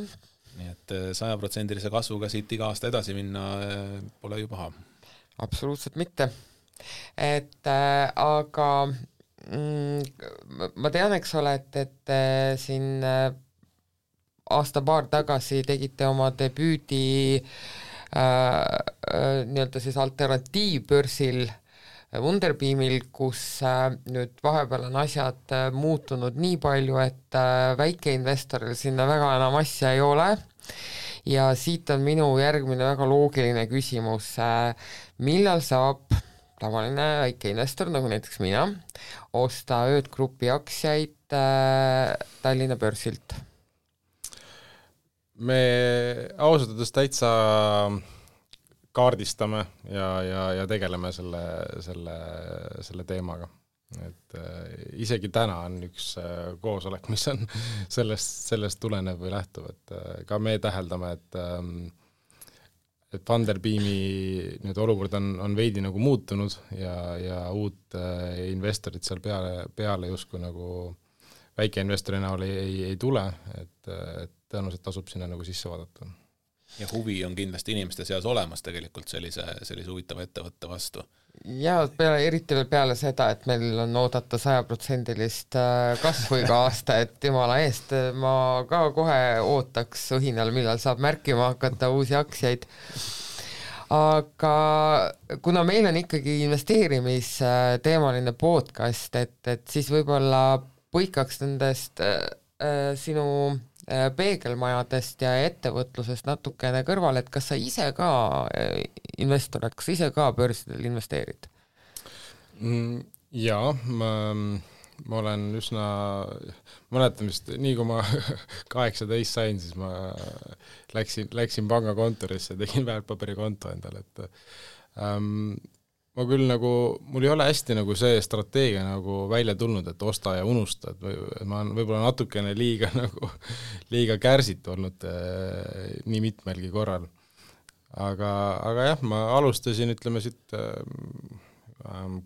Nii et 100% kasvuga siit iga aasta edasi minna pole ju paha. Absoluutselt mitte. Aga ma tean, eks ole, et siin aasta-paar tagasi tegite oma debüüdi nii-öelda siis alternatiivbörsil Wunderbeamil, kus nüüd vahepeal on asjad muutunud nii palju, et väikeinvestoril sinna väga enam asja ei ole ja siit on minu järgmine väga loogiline küsimus, millal saab tavaline väikeinvestor, nagu näiteks mina, osta öödgrupi aktsiaid Tallinna börsilt? Me ausalt öeldes täitsa kaardistame ja tegeleme selle teemaga. Et isegi täna on üks koosolek, mis on sellest tulenev või lähtuv, et ka me täheldame, et Wunderbeami nüüd olukord on veidi nagu muutunud ja uut investorit seal peale justkui nagu väikeinvestori näol ei tule, et tõenäoliselt tasub sinna nagu sisse vaadata. Ja huvi on kindlasti inimeste seas olemas tegelikult sellise huvitava ettevõtte vastu. Ja eriti veel peale seda, et meil on oodata 100% kasvu iga aasta, et jumala eest ma ka kohe ootaks õhinal, millal saab märkima hakata uusi aktsiaid. Aga kuna meil on ikkagi investeerimisteemaline podcast, et siis võib-olla põikaks nendest sinu peegelmajadest ja ettevõtlusest natukene kõrvale, et kas sa ise ka investor, kas sa ise ka börsidel investeerid? Jaa, ma olen üsna, mõnetamist, nii kui ma 18 sain, siis ma läksin pangakontorisse, tegin väärtpaberikonto endale, et ma küll nagu, mul ei ole hästi nagu see strateegia nagu välja tulnud, et osta ja unusta, et ma olen võib-olla natukene liiga kärsit olnud nii mitmelgi korral. Aga jah, ma alustasin, ütleme siit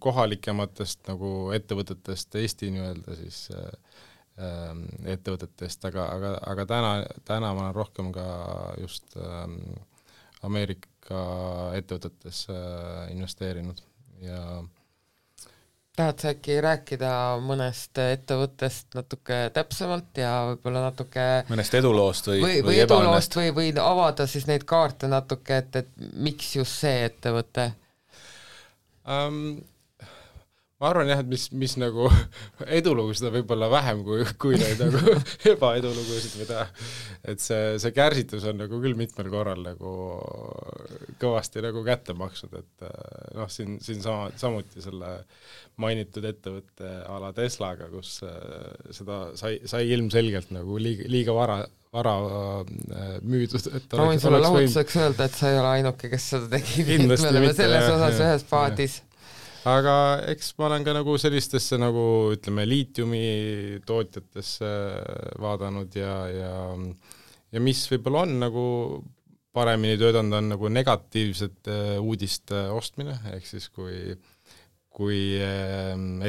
kohalikematest nagu ettevõtetest, Eesti nii-öelda siis ettevõtetest, aga täna ma olen rohkem ka just Ameerika ettevõtetes investeerinud ja tahad sa äkki rääkida mõnest ettevõttest natuke täpsemalt ja võib-olla natuke mõnest eduloost või eduloost või avada siis neid kaarte natuke, et miks just see ettevõte? Ma arvan jah, et mis nagu edulugusid on võib-olla vähem kui neid nagu ebaedulugusid, mida, et see kärsitus on nagu küll mitmel korral nagu kõvasti nagu kätte maksnud, et noh, siin samuti selle mainitud ettevõtte ala Teslaga, kus seda sai ilmselgelt nagu liiga vara müüdud. Ma võin sulle lahutuseks öelda, et sa ei ole ainuke, kes seda tegi, me oleme selles osas ühes paadis. Aga eks ma olen ka nagu sellistesse nagu ütleme liitiumi tootjatesse vaadanud ja mis võib-olla on nagu paremini töötanud on nagu negatiivsete uudiste ostmine, ehk siis kui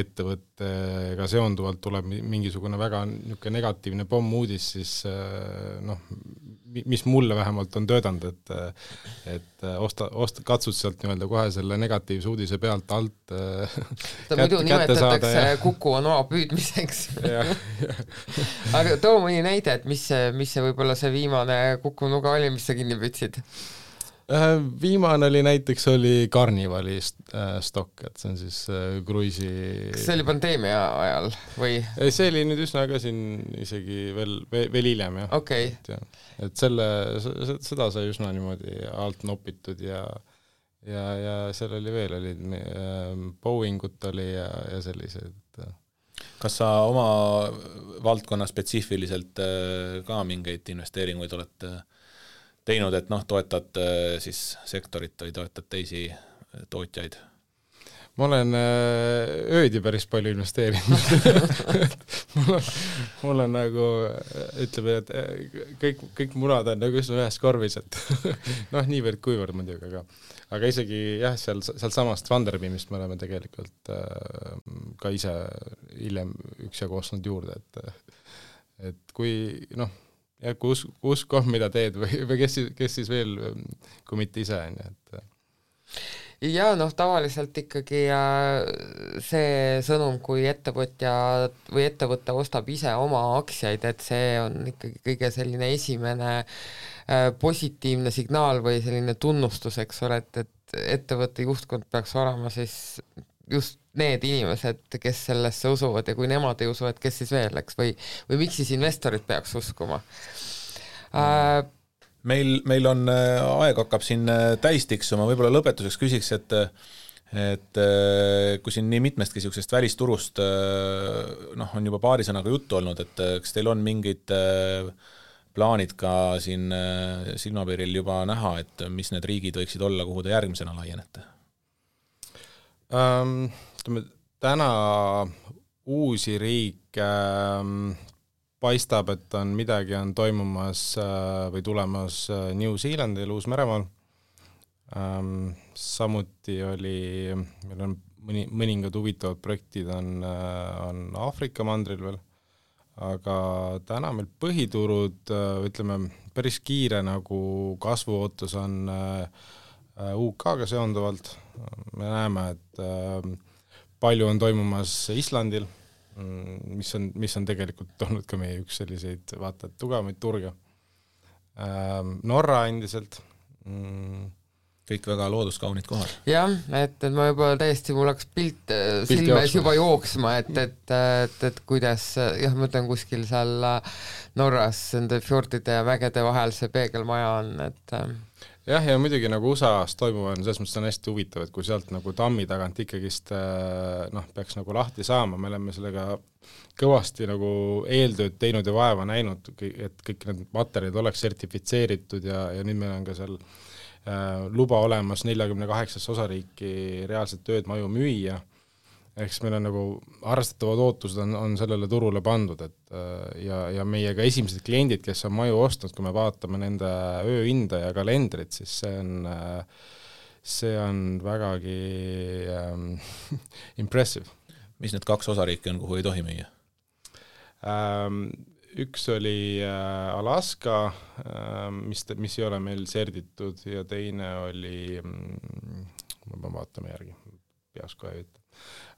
ettevõttega seonduvalt tuleb mingisugune väga niisugune negatiivne pommuudis, siis noh, mis mulle vähemalt on töötanud, et katsud sealt nii-öelda kohe selle negatiivse uudise pealt alt muidu nimetatakse Kuku on oa püüdmiseks. Aga too mõni näide, et mis see võib-olla see viimane Kuku nuga oli, mis sa kinni püüdsid? Viimane näiteks oli Carnivali stokk, et see on siis kruisi... Kas see oli pandeemia ajal või? See oli nüüd üsna ka siin isegi veel hiljem, jah. Okay. Et seda sai üsna niimoodi alt nopitud ja seal oli veel, Boeingut oli ja sellised. Kas sa oma valdkonna spetsiifiliselt ka mingeid investeeringuid olete teinud, et noh, toetad siis sektorit või toetad teisi tootjaid? Ma olen öödi päris palju investeerinud. mul on nagu, ütleme, et kõik munad on nagu ühes korvis, et noh, niivõrd kuivõrd muidugi, aga isegi jah, seal samast Vanderbeamist me oleme tegelikult ka ise hiljem üksjagu ostnud juurde, et kui noh, ja kui usk on, mida teed või kes siis veel, kui mitte ise on. Ja noh, tavaliselt ikkagi see sõnum, kui ettevõtja või ettevõte ostab ise oma aktsiaid, et see on ikkagi kõige selline esimene positiivne signaal või selline tunnustus, eks ole, et ettevõtte juhtkond peaks olema siis just need inimesed, kes sellesse usuvad ja kui nemad ei usu, et kes siis veel, eks, või miks siis investorid peaks uskuma? Meil on aeg hakkab siin täis tiksuma, võib-olla lõpetuseks küsiks, et kui siin nii mitmestki sellisest välisturust noh, on juba paari sõnaga juttu olnud, et kas teil on mingid plaanid ka siin silmapiiril juba näha, et mis need riigid võiksid olla, kuhu te järgmisena laienete? Täna uusi riike paistab, et midagi on toimumas või tulemas New Zealandil, Uus-Meremaal. Samuti meil on mõningad huvitavad projektid on Aafrika mandril veel, aga täna meil põhiturud, ütleme, päris kiire nagu kasvuootus on UK-ga seonduvalt. Me näeme, et palju on toimumas Islandil, mis on tegelikult olnud ka meie üks selliseid vaata tugevamaid turge. Norra endiselt. Kõik väga looduskaunid kohad. Jah, et ma juba täiesti, mul hakkas pilt silmes juba jooksma, et kuidas, jah, ma mõtlen kuskil seal Norras nende fjordide ja mägede vahel see peegelmaja on, et jah, ja muidugi nagu USA-s toimuva on, selles mõttes on hästi huvitav, et kui sealt nagu tammi tagant ikkagist peaks nagu lahti saama, me oleme sellega kõvasti nagu eeltööd teinud ja vaeva näinud, et kõik need materjalid oleks sertifitseeritud ja nüüd meil on ka seal luba olemas 48 osariiki reaalselt tööd maju müüa, ehk meil on nagu arvestatavad ootused on sellele turule pandud, et ja meie ka esimesed kliendid, kes on maju ostnud, kui me vaatame nende ööhinda ja kalendrit, siis see on vägagi impressive. Mis need 2 osariiki on, kuhu ei tohi müüa? Üks oli Alaska, mis ei ole meil serditud ja teine oli, ma vaatame järgi, peas kohe ütle.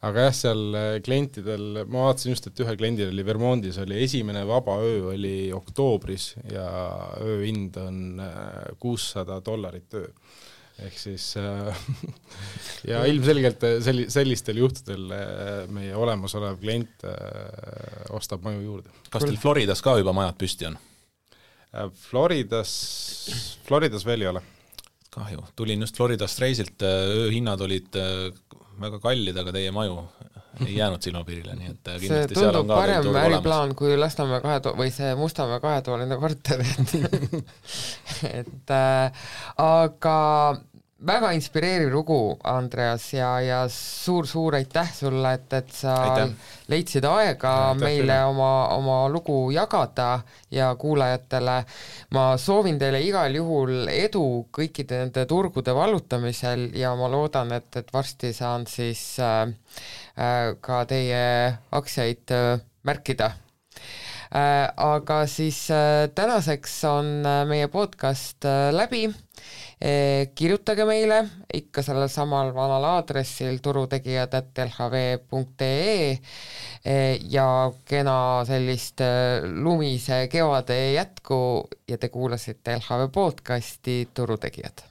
Aga jah, seal klientidel, ma vaatasin just, et ühe kliendil oli Vermontis, oli esimene vaba öö oli oktoobris ja ööhind on $600 öö. ehk siis ja ilmselgelt sellistel juhtudel meie olemasolev klient ostab maju juurde. Kas teil Floridas ka juba majad püsti on? Floridas veel ei ole. Kahju, tulin just Floridast reisilt, ööhinnad olid väga kallid, aga teie maju ei jäänud silmapiirile, nii et see tundub parem äriplaan kui Lasnamäe või see Mustamäe 2-toaline korter. et aga väga inspireeriv lugu, Andreas, ja suur aitäh sulle, et sa leidsid aega meile oma lugu jagada ja kuulajatele. Ma soovin teile igal juhul edu kõikide nende turgude vallutamisel ja ma loodan, et varsti saan siis ka teie aktsiaid märkida. Aga siis tänaseks on meie podcast läbi. Kirjutage meile ikka sellel samal vanal aadressil turutegijad@lhv.ee ja kena sellist lumise kevade jätku ja te kuulasite LHV podcasti Turutegijad.